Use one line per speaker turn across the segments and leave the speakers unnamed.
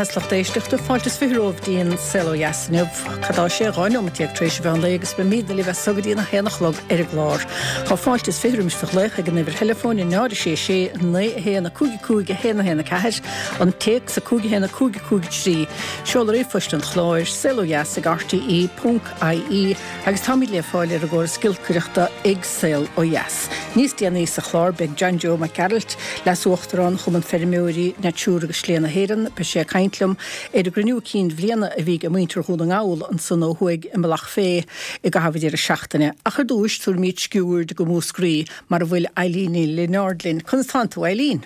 is lucht éisteachta, fáilte is 20 romhaibh dtí'n Saol Ó Dheas inniu. Cad tá sé, 12 nóimeat tar éis an mheán lae agus beimídne libh as so go dtí'n 1 a chlog ar an gclár. Tá fáilte is 20 roimis do ghlaoch ag an uimhir theileafóin 0 6 6 9 1 5 5 1 1 4, an téacs 5 1 5 5 3, seoladh ríomhphoist an chláir, saolodheas ag rte ponc ie, Agus táimid le fáil ar an gcóras giolcaireachta ag Saol Ó Dheas. Níos déanaí sa chlár beidh John Joe Mac Gearailt, Leas-Uachtarán Chumann Feirmeoirí Natura agus Slí na hÉireann, beidh sé ag caint liom ar an gcruinniú cinn bhliana a bhí ag muintir Dhún na nGall ansan ó thuaidh i mBealach Féich i gcaitheamh an deireadh seachtaine. Ach ar dtúis tabharfaimid sciuird go Múscraí mar a bhfuil Eileen Ní Lionáird linn. Conas tánn tú, Eileen?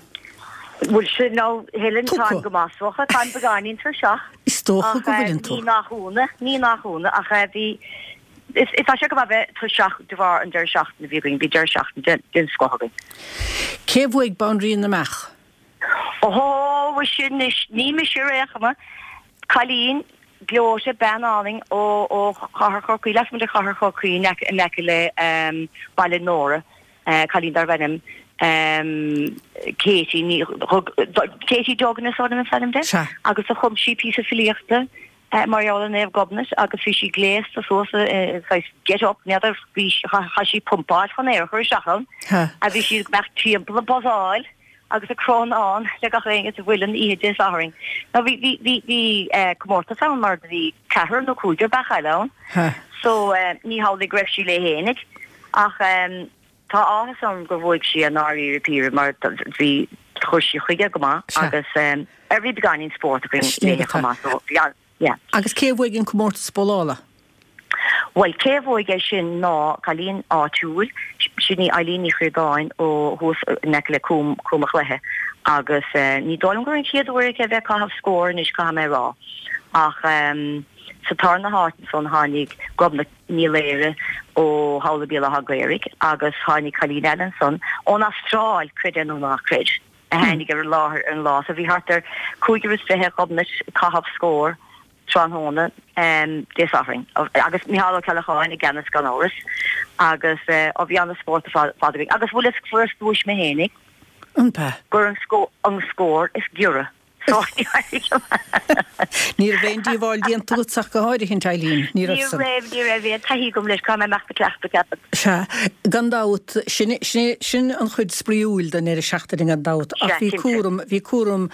Bhuel sin nó Helen, táim go maith is dócha, táim beagáinín tuirseach.
Is dócha go bhfuileann tú.
Ní nach ionadh, ní nach ionadh, ach bhí, is tá sé go maith bheith tuirseach de bharr an deireadh seachtaine a bhí againn, bhí deireadh seachtaine den scoth againn.
Cé a bhuaigh Banríon na mBeach?
Ó, mhuise anois, ní mise ar aon chuma. Cailín gleoite, bean álainn ó ó chathair Chorcaí, lasmuigh de chathair Chorcaí in aice in aice le Baile Nóra. cailín darbh ainm Katie Ní Katie Duggan is dóigh liom is ainm di agus do chum sí píosa filíochta mar gheall ar Naomh Gobnait agus bhí sí gléasta suas i saghas get up, n'fheadar, bhí chaith sí pumpáil chun aer a chur isteach ann a bhí sí ag imeacht timpeall ag buzzáil agus ag crónán le gach éinne sa mhuileann oíche Dé Sathairn. Now bhí bhí bhí bhí comórtas ann mar do bhí ceathrar nó cúigear beach eile ann so ní hamhlaidh go raibh sí léi fhéinig. Ach tá áthas orm gur bhuaigh sí i ndáiríre píre mar bhí, chuir sí chuige go maith agus ar bhí beagáinín spóirt againn léi chomh maith so bhí an, yeah.
Agus cé a bhuaigh an comórtas bowlála?
Bhuel cé a bhuaigh é sin ná cailín áitiúil, sin í Eileen Ní Chríodáin ó thuas in aice le Cúm, Cúm a' Chluiche agus ní dóigh liom gur an chéad uair aici a bheith ag caitheamh scór anois caithfidh mé a rá ach sa tarna háit ansan tháinig Gobnait Ní Laoire ó Thamhlaigh Béal Átha Ghaorthaidh agus tháinig cailín eile ansan ón Astráil, creid é nó ná creid, a tháinig ar an láthair ar an lá. So bhí thart ar cúigear is fiche Ghobnait ag caitheamh scór tráthnóna Dé Sathairn agus Micheál Ó Ceallacháin i gceannas gan amhras agus ó bhí ana-spórt ar fad againn. Agus bhfuil fhios fuaireas duais mé fhéinig
An b'ea?
gur an scór is giorra.
Ní raibh aon díobháil déanta agat ach go háirithint, Eileen, ní raibh
san. Ní raibh, ní raibh aon taithí agam leis, caithfidh mé imeacht ag cleachtadh, ceapaim.
Sea, gan dabht, sin, sin, sin an chuid spraíúil den deireadh seachtaine gan dabht, ach bhí cúram, bhí cúram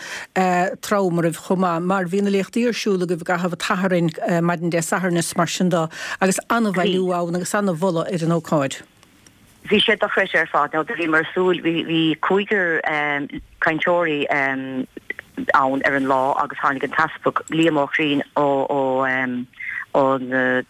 trom oraibh chomh maith, mar bhí na léachtaí ar siúl agaibh i gcaitheamh an tSathairn, maidin Dé Sathairn is mar sin de, agus an-bhailiú ann agus an-mholadh ar an ócáid.
Bhí sé dochreidte ar fad. Now do bhíomar ag súil, bhí, bhí cúigear cainteoirí ann ar an lá agus tháinig an tEaspag Liam Ó Chriain ó, ó, ón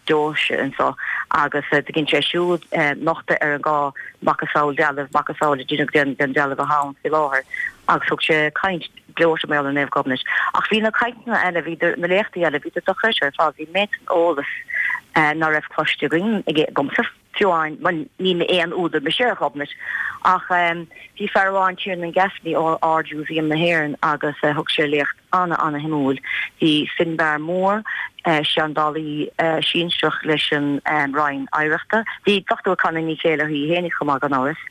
deoise anso agus do dhein sé siúd nochtadh ar an dhá macasamhail dealbh, macasamhail a deineadh den, den dealbh athá ann faoi láthair agus thug sé caint gleoite mar gheall ar Naomh Gobnait. Ach bhí na cainteanna eile, bhí na léachtaí eile, bhíodar dochreidte ar fad, bhí méid san eolas ná raibh cloiste againn, agamsa. Fiú amháin, bhuel, ní aon údar mise ar Ghobnait, ach bhí fear amháin, Tiernan Gaffney ó Ard-Mhúsaem na hÉireann agus thug sé léacht ana-ana-shuimiúil. Bhí Finbarr Moore, seandálaí sinsearach leis an Roinn Oidhreachta, bhí Dr. Connie Ní Chéilleachair í fhéinig chomh maith gan amhras.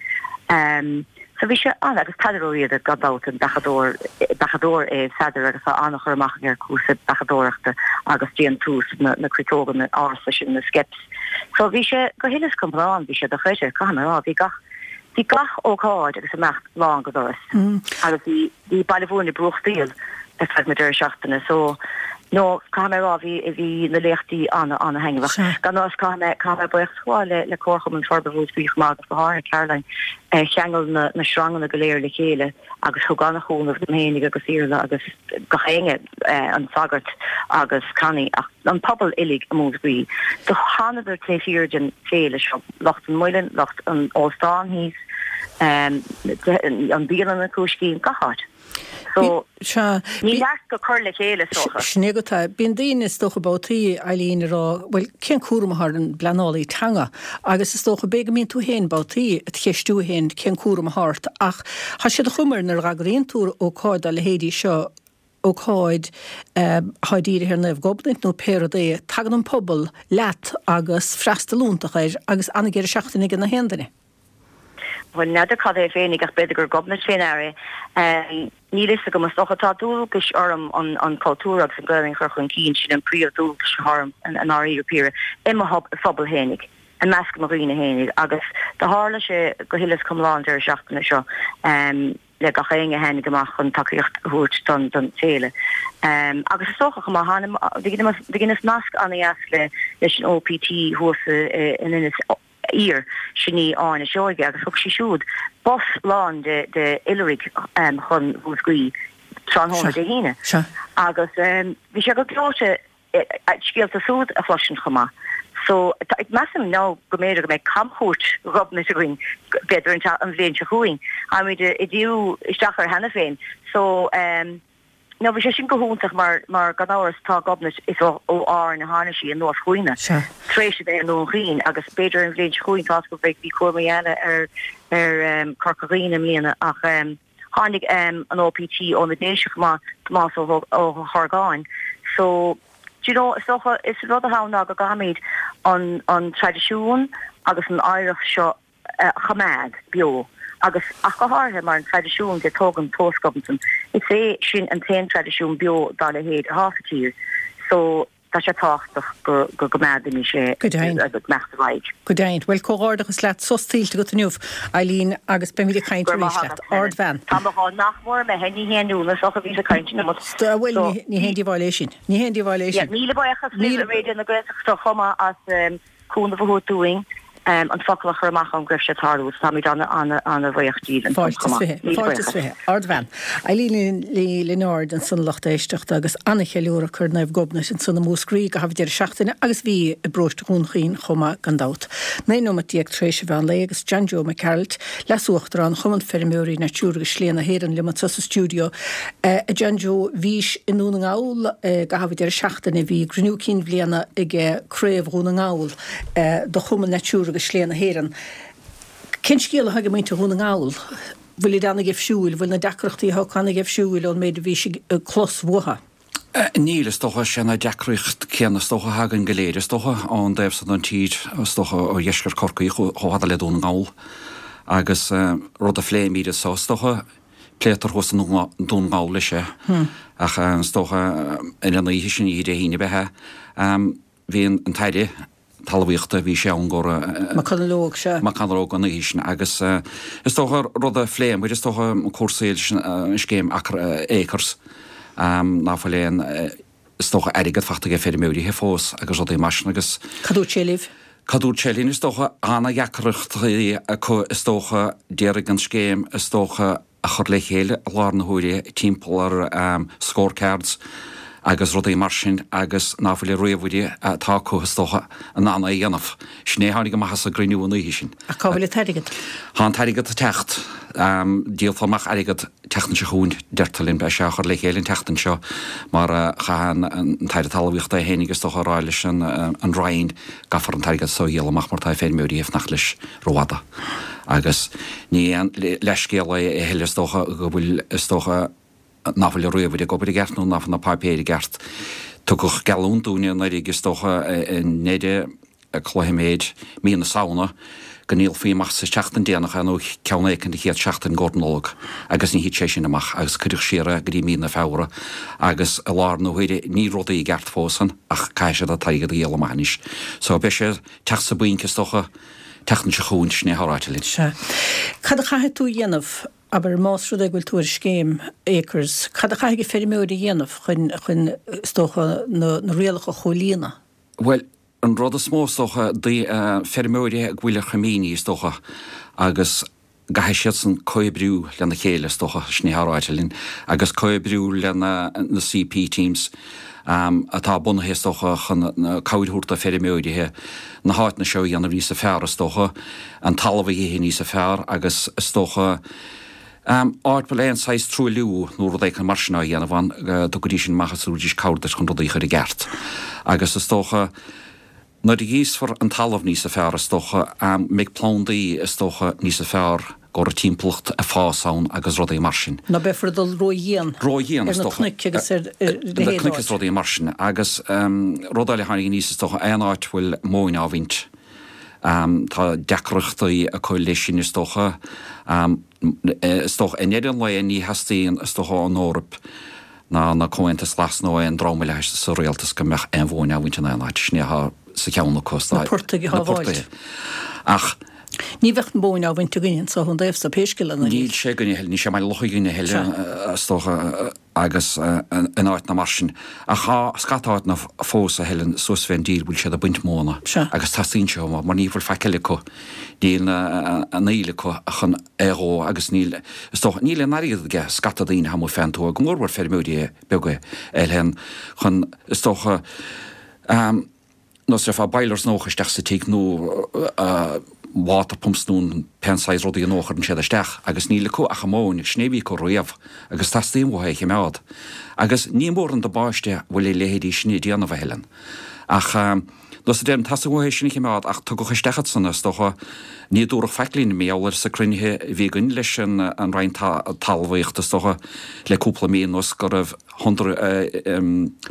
So bhí sé an, agus Peadar Ó Riada gan dabht, an beachadóir, beachadóir é Peadar agus tá an-chur amach aige ar cúrsaí beachadóireachta agus déantús na, na cruiteoga ársa sin, na skeps. So bhí sé go huile is go hiomlán, bhí sé dochreidte, caithfidh mé a rá, bhí gach, bhí gach ócáid agus imeacht lán go doras. Agus bhí, bhí Baile Mhúirne ag brúchtaíl ar feadh na deireadh seachtaine. So, no, caithfidh mé a rá, bhí, bhí na léachtaí ana, ana thaitneamhach. Gan amhras, caithfidh mé, caithfidh mé buíochas a ghabháil le, le Comharchumann Forbartha Mhúscraí chomh maith agus go háirithe Caroline, a cheangail na, na sranganna go léir le chéile agus thug ana-chúnamh dom fhéinig agus Iarla agus gach éinne, an sagart agus Connie ach an pobal uilig i Múscraí. Do thánadar taobh thiar den féile seo, lucht an Muilinn, lucht an óstáin thíos, an bialann an Cúiscín, gach áit. So, ní neart go cur le chéile, is
dócha. Sin é agat é. Bíonn daoine, is dócha, babhtaí, Eileen, ag rá, bhuel, cén cúram atá ar an bpleanálaí teanga? Agus is dócha, b'fhéidir go mbíonn tú féin babhtaí ag ceistiú féin cén cúram atá ort ach tá sé de chuma air nuair a dh'eagraíonn tú ócáid dá leithéidí seo, ócáid atá dírithe ar Naomh Gobnait nó pé rud é, tagann an pobal leat agus freastal iontach air agus an-deireadh seachtaine ag na haon duine.
Bhuel, n'fheadar cad é féinig ach b'fhéidir gur Gobnait fé ndear é. Níl fhios agam. Is dócha tá dualgais orm an cultúr agus an Ghaelainn a chur chun cinn, sin an príomh dualgas atá orm i ndáiríre píre, i mo phobal fhéinig, i measc mo dhaoine fhéinig agus do tharla sé go huile is go hiomlán an deireadh seachtaine seo le gach éinne a tháinig amach chun tacaíocht a thabhairt don don féile. Agus is dócha chomh maith, do dheineas nasc ana-dheas le leis an OPT thuas in Inis Oírr, sin í Áine Seoige, agus thug sí siúd bus lán de de oilithrigh chun Mhúscraí tráthnóna Dé hAoine. Agus bhí sé go gleoite scéalta súd a chloisint chomh maith. So, measaim now go mb'fhéidir go mbeidh camchuairt Ghobnait againn b'fhéidir an bhliain seo chugainn. Táimid ag díriú isteach air cheana féin. So, Now bhí sé sin go hiontach mar, mar gan amhras tá Gobnait, is ó, ó Árainn a tháinig sí anuas chugainne tar éis a bheith i nDún Chaoin agus b'fhéidir an bhliain seo chugainn tá go bhí, bhí cúramaí eile ar, ar ehm Corca Dhuibhne i mbliana ach ehm tháinig ehm an OPT ó na Déise chomh maith, Tomás Ó, Ó hOrgáin. So, do you know, is dócha, is rud atá ann ná go gcaithfimid an, an traidisiún agus an oidhreacht seo a choimeád beo agus ach go háirithe mar an traidisiún de tógaint tomhas Gobnatan, is é sin an t-aon traidisiún beo dá leithéid atá sa tír so tá sé tábhachtach go go gcoimeádfaimis é
Go deimhin.
ag imeacht ar aghaidh.
Go deimhin. Bhuel, comhghairdeachas leat, sos tuillte agat inniu, Eileen, agus beimid ag caint
Go raibh
arís
maith
leat.
agat, Helen.
Ardbhean.
Tá mo dhá nach mór imithe, ní haon iontas ach a bhíos ag caint an iomad.
Bhuel,
So,
ní haon díobháil é sin. Ní haon díobháil é
yeah,
sin.
míle buíochas libh
Míle.
i Raidió na Gaeltachta chomh maith as cúnamh a thabhairt dúinn an focal a chur amach ann go raibh sé ag tarlú agus táimid ana-bhuíoch díbh ansan
Fáilte
chomh
is
maith.
20.
Míle
Fáilte is
buíochas.
20. Ardbhean. Eileen Ní Lionáird ansan a lucht éisteachta agus ana-cheiliúradh acu ar Naomh Gobnait ansan i Múscraí i gcaitheamh deireadh seachtaine agus bhí i bparóiste Dhún Chaoin chomh maith gan dabht. 19 nóimeat tar éis an mheán lae agus John Joe Mac Gearailt, Leas-Uachtarán Chumann Feirmeoirí Natura agus Slí na hÉireann liom anso sa stiúideo. A John Joe, bhís i nDún na nGall i gcaitheamh an deireadh seachtaine, bhí gcruinniú cinn bhliana ag Craobh Dhún na nGall do Chumann Natura agus Slí na hÉireann. Cén scéal atá ag muintir Dhún na nGall? Bhfuilid ana-gheimhsiúil? Bhfuil na deacrachtaí atá acu ana-gheimhsiúil ón méid a bhís ag clos uathu?
Níl, is dócha. Sé na deacracht céanna is dócha atá againn go léir, is dócha, ón dtaobh san den tír, is dócha, ó dheisceart Chorcaí chomh fada le Dún na nGall. Agus rud a phléimid anso, is dócha, pléitear thuas i nDún na nGall leis é. Ach is dócha, ar an oíche sin, oíche Dé hAoine ab ea é, bhí an tAire Talmhaíochta, bhí sé ann go raibh.
McConalogue, sea.
McConalogue an oíche sin agus is dócha rud a phléamar, is dócha cúrsaí leis an scéim Acres, ná fuil aon, is dócha airgead fachta ag feirmeoirithe fós agus rudaí mar sin agus.
Cad dúirt sé libh?
Cad dúirt sé linn, is dócha, ana-dheacrachtaí acu is dócha, d'iarraidh an scéim is dócha, a chur le chéile i láthair na huaire timpeall ar scorecards agus rudaí mar sin agus ná fuil an ríomhaire atá acu is dócha in ann é a dhéanamh. Sin é a tháinig amach as an gcruinniú an oíche sin.
Ach cá bhfuil an t-airgead?
Tá an t-airgead ag teacht. Díolfar amach airgead tseachtain seo chugainn, deirtear linn. Beidh sé á chur le chéile an tseachtain seo mar chaith an tAire Talmhaíochta é féinig is dócha a rá leis an Roinn gcaithfear an t-airgead so a dhíol amach mar tá feirmeoirí ag fanacht leis. rófhada. Agus ní aon leithscéal é a thuilleadh is dócha go bhfuil, is dócha, ná fuil an ríomhaire ag obair i gceart nó ná fuil na páipéir i gceart. Tugadh geallúint dúinne anuraidh is dócha i ndeireadh cloiméid mí na Samhna go ndíolfaí amach sa tseachtain déanach é nó ceann éicint an chéad seachtain i gcomhair Nollag agus ní thit sé sin amach agus cuireadh siar é go dtí mí na Feabhra agus i láthair na huaire níl rudaí i gceart fós ann ach caithfidh siad an t-airgead a dhíol amach anois. So beidh sé teacht sa bpointe is dócha tseachtain seo chugainn, sin é atá ráite linn.
Sea. Cad a chaithfidh tú a dhéanamh, abair, más rud é go bhfuil tú ar scéim Acres, cad a chaithfidh an feirmeoir a dhéanamh chun, chun, is dócha, na, na rialacha a chomhlíonadh?
Bhuel, an rud is mó, is dócha, feirmeoirí go bhfuil ar choimíní, is dócha, agus gcaithfidh siadsan comhoibriú lena chéile, is dócha, sin é atá ráite linn, agus comhoibriú le na CP teams atá bunaithe, is dócha, chun cabhair a thabhairt do feirmeoirithe na háiteanna seo a dhéanamh níosa fearr, is dócha, an talamh a ithe níosa fearr agus, is dócha, áit bhfuil aon saghas truailliú nó rud éicint mar sin á dhéanamh ann, go dtugfaidís sin amach agus tabharfaidís cabhair duit chun rudaí a chur i gceart. Agus is dócha. Nuair a ghríosfar an talamh níosa fearr, is dócha, mbeidh plandaí, is dócha, níosa fearr go raibh timpeallacht ag fás ann agus rudaí mar sin.
Ná beifear ag dul ró-dhian
Ró-dhian,
ar
is
na
dócha.
cnoic agus ar a
Na
leithéid
cnoic is
d'áit.
rudaí mar sin. Agus rud eile a tháinig aníos, is dócha, aon áit a bhfuil móin á bhaint. Tá deacrachtaí acu leis sin is dócha. Is dócha, i ndeireadh an lae ní theastaíonn is dócha ón Eoraip ná na Comhaontas Glas nó aon dream eile sa rialtas go mbeadh aon mhóin á bhaint in aon áit. Sin é atá sa cheann acu.
Na portaigh a shábháilt.
Ach.
Ní bheadh an mhóin á bhaint againne anso ón dtaobh so pé scéal é.
Níl sé againne a thuilleadh, níl sé i mBaile Locha againne a thuilleadh is dócha. agus in áiteanna mar sin. Ach tá scata áiteanna fós a Helen suas fén dtír bhfuil siad ag baint móna agus teastaíonn sé uathu mar ní bhfuil faic eile acu. Níl an fhuíoll acu chun é a dhó agus níl, is dócha, níl aon airgead aige scata daoine amuigh fén tuath, go mór mhór feirmeoirí beaga a Helen, chun, is dócha, nós déarfá boilers nua a chur isteach sa tigh nó water pumps nó pé saghas rudaí nua a chuireann siad isteach agus níl acu ach an mhóin agus sin é a bhí acu riamh agus teastaíonn uathu é a chimeád. Agus ní mór an damáiste a bhfuil a leithéidí sin ag déanamh, a Helen. Ach nós a deirim, teastaíonn uathu é sin a chimeád ach tugadh isteach iad san, is dócha, ní dúradh faic linn, mar gheall air sa cruinnithe a bhí againn leis an Roinn Talmhaíochta, is dócha, le cúpla mí anuas go raibh hundred,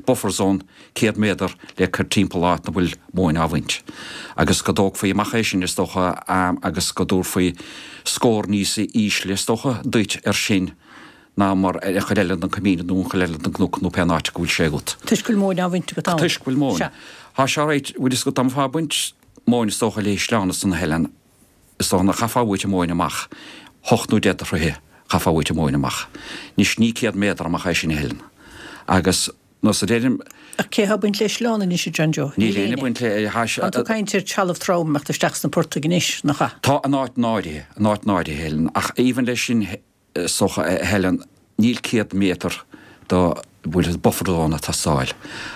buffer zone, 100 méadar le cur timpeall áit 'na bhfuil móin á bhaint. Agus go dtógfaí amach é sin, is dócha, agus go dtabharfaí scór níos ísle, is dócha, duit ar sin ná mar ar an chuid eile den coimín nó an chuid eile den gcnoc nó pén áit go bhfuil sé agat.
Toisc go bhfuil móin á bhaint agat ann.
Toisc go bhfuil móin.
Sea.
Tá sé right, bhfuil fhios agat, dá mbeifeá ag baint móin, is dócha, le sleán ansan a Helen, is dócha, nach chaithfeá uait an mhóin amach, hocht nó deich de throithe, chaithfeá uait an mhóin amach. Anois, ní 100 méadar amach é sin a Helen. Agus. Nós a deirim.
Ach cé atá ag baint le sleán anois, a John Joe?
Níl éinne ag baint le.
Tá tú ag caint ar trealamh trom ag imeacht isteach sna portaigh anois, nach ea?
Tá, in áiteanna áirithe, in áiteanna áirithe, a Helen, ach even leis sin, is dócha, a Helen, níl 100 méadar do bhfuil buffer zone ag teastáil.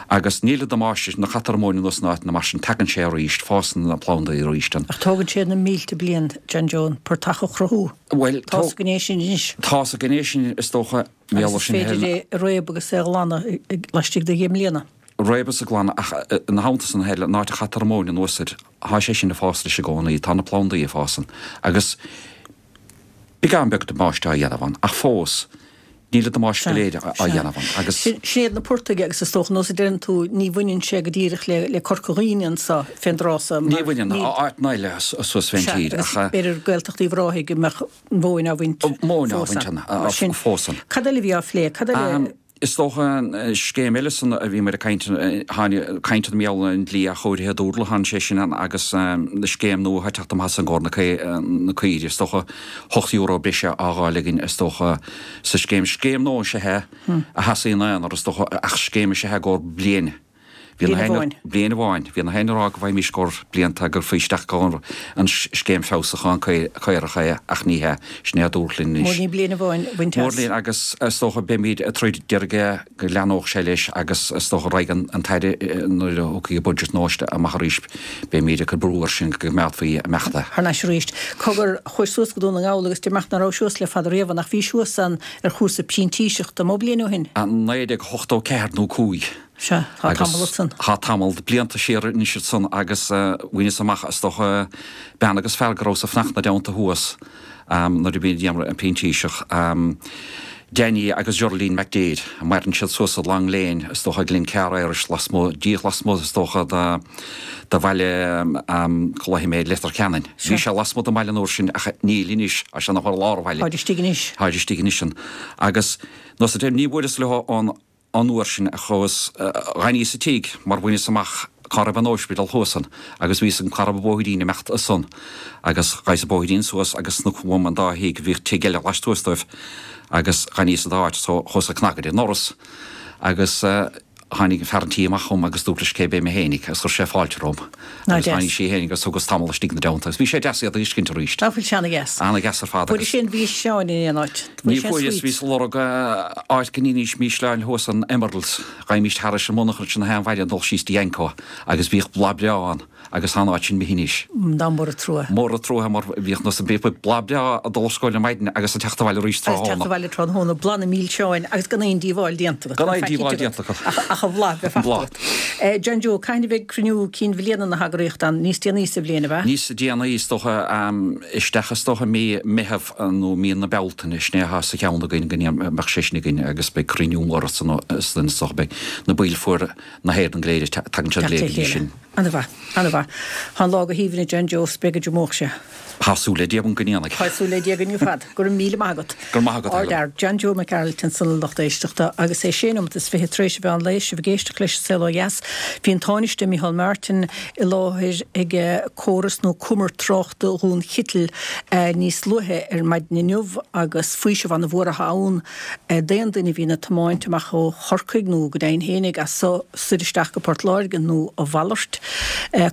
Agus níl an damáiste sin, nuair a chaitear an mhóin anuas in áiteanna mar sin, tagann sé arís, fásann na plandaí arís.
Ach tógann sé na mílte bliain, John Joe, an portach a chruthú.
Bhuel,
Tá sa ghné sin anois.
Tá sa ghné sin, is dócha.
Agus is féidir é a réabadh agus é a ghlanadh laistigh de dheich mbliana.
Réabadh is a ghlanadh ach ina theannta san a Helen, an áit a chaitear an mhóin anuas air, thá sé sin ag fás leis i gcónaí, tá na plandaí ag fás ann agus beagán beag damáiste á dhéanamh ann ach fós níl an damáiste go léir á dhéanamh ann agus.
Sin iad na portaigh agus is dócha, nós a deireann tú, ní bhaineann sé go díreach le Corca Dhuibhne anso fén dtráth so
mar. Ní bhaineann, áiteanna eile suas fén tír
ach. Sea, agus b'fhéidir Gaeltacht Uíbh Ráthaigh go mbeadh an mhóin á bhaint
Móin á bhaint ann.
Mar sin,
fós ann.
Cad eile a bhí á phlé? Cad eile?
Is dócha an scéim eile san a bhíomar ag caint, tháinig caint mar gheall ar an dlí athchóirithe dobharlaigh, tháinig sé sin ann agus na scéim nua atá ag teacht amach as i gcomhair na caoirigh, is dócha €8 breise á dh'fháil againn is dócha sa scéim. Scéim nua is ea é a sheasaigh ina aonar is dócha ach scéim is ea é i gcomhair bliain.
Bliain amháin.
Bliain amháin. Bhí na héinne ag rá go bhfaighimís i gcomhair blianta go gcuirfí isteach i gcomhair an scéim feabhsúcháin caorach é ach ní hea. Sin é a dúradh linn anois.
Mór ní bliain amháin a bhaint as.
Mór linn agus is dócha beimid ag troid d'iarraidh go leathnódh sé leis agus is dócha raghaidh an tAire nuair a thiocfaidh an budget nua amach arís beimid ag cur brú air sin go gcoimeádfaí imeacht é.
Thar n-ais arís. Cogar, chuais suas go Dún na nGall agus deir mé nach raibh suas le fada riamh ach bhís thuas ann ar chúrsa printíseachta, mó bliain ó shin?
1984 nó 5.
Sea, tá tamall ansan.
Tá tamall de blianta siar anois ansan agus bhaineas amach, is dócha, bean agus fear go rabhas ag fanacht 'na dteannta thuas nuair a bhí déanamh an printíseach, Danny agus Geraldine McDaid. Maireann siad suas i Long Lane, is dócha, Glencar Irish, lasmuigh, díreach lasmuigh, is dócha, de bhaile, cá luafaidh mé, Leitir Ceanainn. Bhí sé lasmuigh den bhaile an uair sin ach níl anois, tá sé ina i lár an bhaile.
Táid istigh anois.
Táid istigh anois ann. Agus, nós a deir, ní bhfuaireas leo ón. An uair sin a chuas, dh'fhanaíos sa tigh mar bhaineas amach cá raibh an óispidéal thuas ann agus bhí fhios agam cá raibh an bóithrín ag imeacht ansan agus ghabhas an bóithrín suas agus sna uaim an dá thigh, bhíodh tigh eile laistuas dóibh agus dh'fhanaíos sa dá áit so chuas ag cnagadh ar an ndoras agus tháinig fear an tí amach chugam agus dúirt leis cé b'é mé fhéinig agus chuir sé fáilte romham agus tháinig sí fhéinig agus thugas tamall istigh 'na dteannta agus bhí sé deas iad a fheiscint arís.
Nach bhfuil sé ana-dheas?
Ana-dheas ar fad
agus. Fuairis aon mhísleáin in aon áit?
Ní fuaireas, bhíos ag lorg áit go n-íofainn mísleáin thuas in Emeralds, ghabhaimis thairis an monarcha ansin na haon mhaidin ag dul síos dtí Anco agus bhíodh bláth breá ann agus tá an áit sin imithe anois.
Dá mór an trua.
Mór an trua mar bhíodh nós bhíodh bláth breá ag dul ar scoil ar maidin agus ag teacht abhaile arís
tráthnóna. Agus teacht abhaile tráthnóna, bláth na mílseáin agus gan aon díobháil déanta agat.
Gan aon díobháil déanta agat.
Ach an bhláth bheith fachta agat. John Joe, cathain a bheidh cruinniú cinn bhliana na heagraíochta ann? Níos déanaí sa bhliain, ab ea?
Níos déanaí, is dócha, isteach is dócha mí Meitheamh nó mí na Bealtaine, sin é atá sa cheann againn go mbeadh sé sin againn agus beidh cruinniú mór ansan is dócha beidh na baill foirne na hÉireann go léir, tagann siad go léir go dtí sin.
Ana mhaith, ana mhaith. Tá an lá go haoibhinn a John Joe, 's beidh go deo amárach sé.
Tá súil le Dia agam go ndéanfaidh.
Tá súil le Dia againn ar fad. Go raibh míle maith agat.
Go raibh maith agat,
Helen. Ard-fhear, John Joe Mac Gearailt ansan a lucht éisteachta agus é sé nóimeat is fiche tar éis an mheán lae, sibh ag éisteacht leis an Saol Ó Dheas. Bhí an Tánaiste Micheál Martin i láthair ag córas nó cumar tráchta Dhún Chitil níos luaithe ar maidin inniu agus faoiseamh ana mhór atá ann d'aon duine a bhíonn ag tiomáint amach ó Chorcaigh nó go deimhin fhéinig as so soir isteach go Port Láirge nó a mhalairt.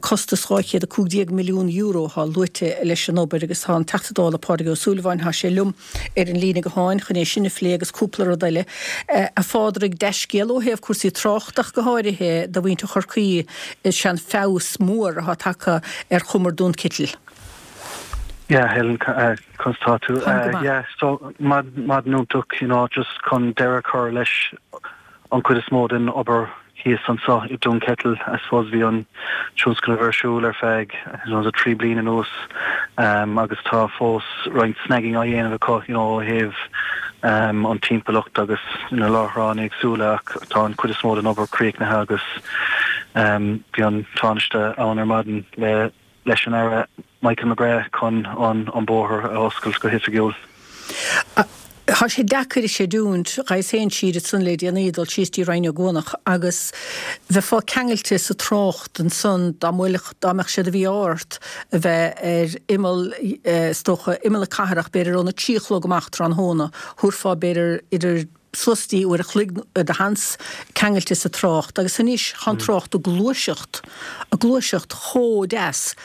Costas €215 milliún atá luaite leis an obair agus tá an Teachta Dála Pádraig Ó Súilleabháin, tá sé liom ar an líne gutháin chun é sin a phlé agus cúpla rud eile. A Phádraig, dea-scéal ó thaobh cúrsaí tráchta ach go háirithe do mhuintir Chorcaí is ea an feabhas mór atá tagtha ar chumar Dún Citil.
Yeah, Helen, conas tá tú?
Táim go maith.
Yeah, so maidin iontach, you know, just chun deireadh a chur leis an chuid is mó den obair thíos anseo i Dún Ceitil. I suppose bhí an tionscnamh ar siúl ar feadh, you know, 3 bliain anuas agus tá fós roinnt snagging á dhéanamh acu, you know, ó thaobh an timpeallacht agus na láithreáin éagsúla ach tá an chuid is mó den obair críochnaithe agus bhí an Tánaiste ann ar maidin le leis an Aire Michael McGrath chun an bóthar a oscailt go hoifigiúil.
Tá sé deacair a chreidiúint, ghabhas féin siar ansan le déanaí, dul síos dtí Rinn Ó gCuanach agus bheifeá ceangailte sa trácht ansan dá mbuailfeadh, dá mbeadh sé de mhí-ádh ort a bheith ar imeall, is dócha, imeall na cathrach, b'fhéidir óna trí a chlog amach tráthnóna, thabharfá b'fhéidir idir suas dtí uair a chloig de sheans ceangailte sa trácht agus anois tá an trácht ag gluaiseacht, ag gluaiseacht chomh deas.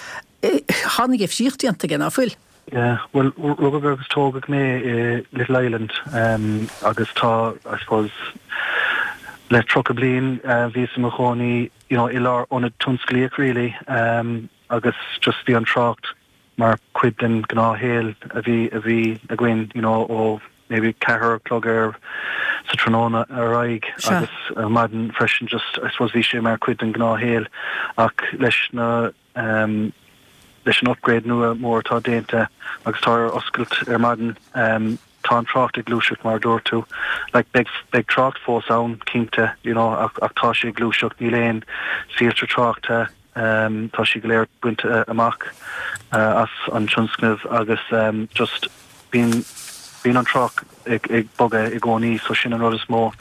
Tá an difríocht déanta aige, ná fuil?
Yeah, bhuel, rugadh agus tógadh mé i Little Island agus tá, I suppose, le 30 bliain bhíos i mo chónaí, you know, i lár ionad tionsclaíoch really agus just bhí an trácht mar chuid den ghnáthshaol a bhí a bhí againn you know ó maybe ceathair a chlog ar sa tráthnóna ar aghaidh agus ar maidin freisin just I suppose bhí sé mar chuid den ghnáthshaol ach leis na um, leis an upgrade nua mór atá déanta agus tá ar oscailt ar maidin um, tá an trácht ag gluaiseacht mar a dúirt tú. Like beidh beidh trácht fós ann cinnte you know ach ach tá sé ag gluaiseacht níl aon soilse tráchta Tá siad go léir bainte amach as an tionscnamh agus just bíonn bíonn an trácht ag ag bogadh i gcónaí so sin an rud is mó.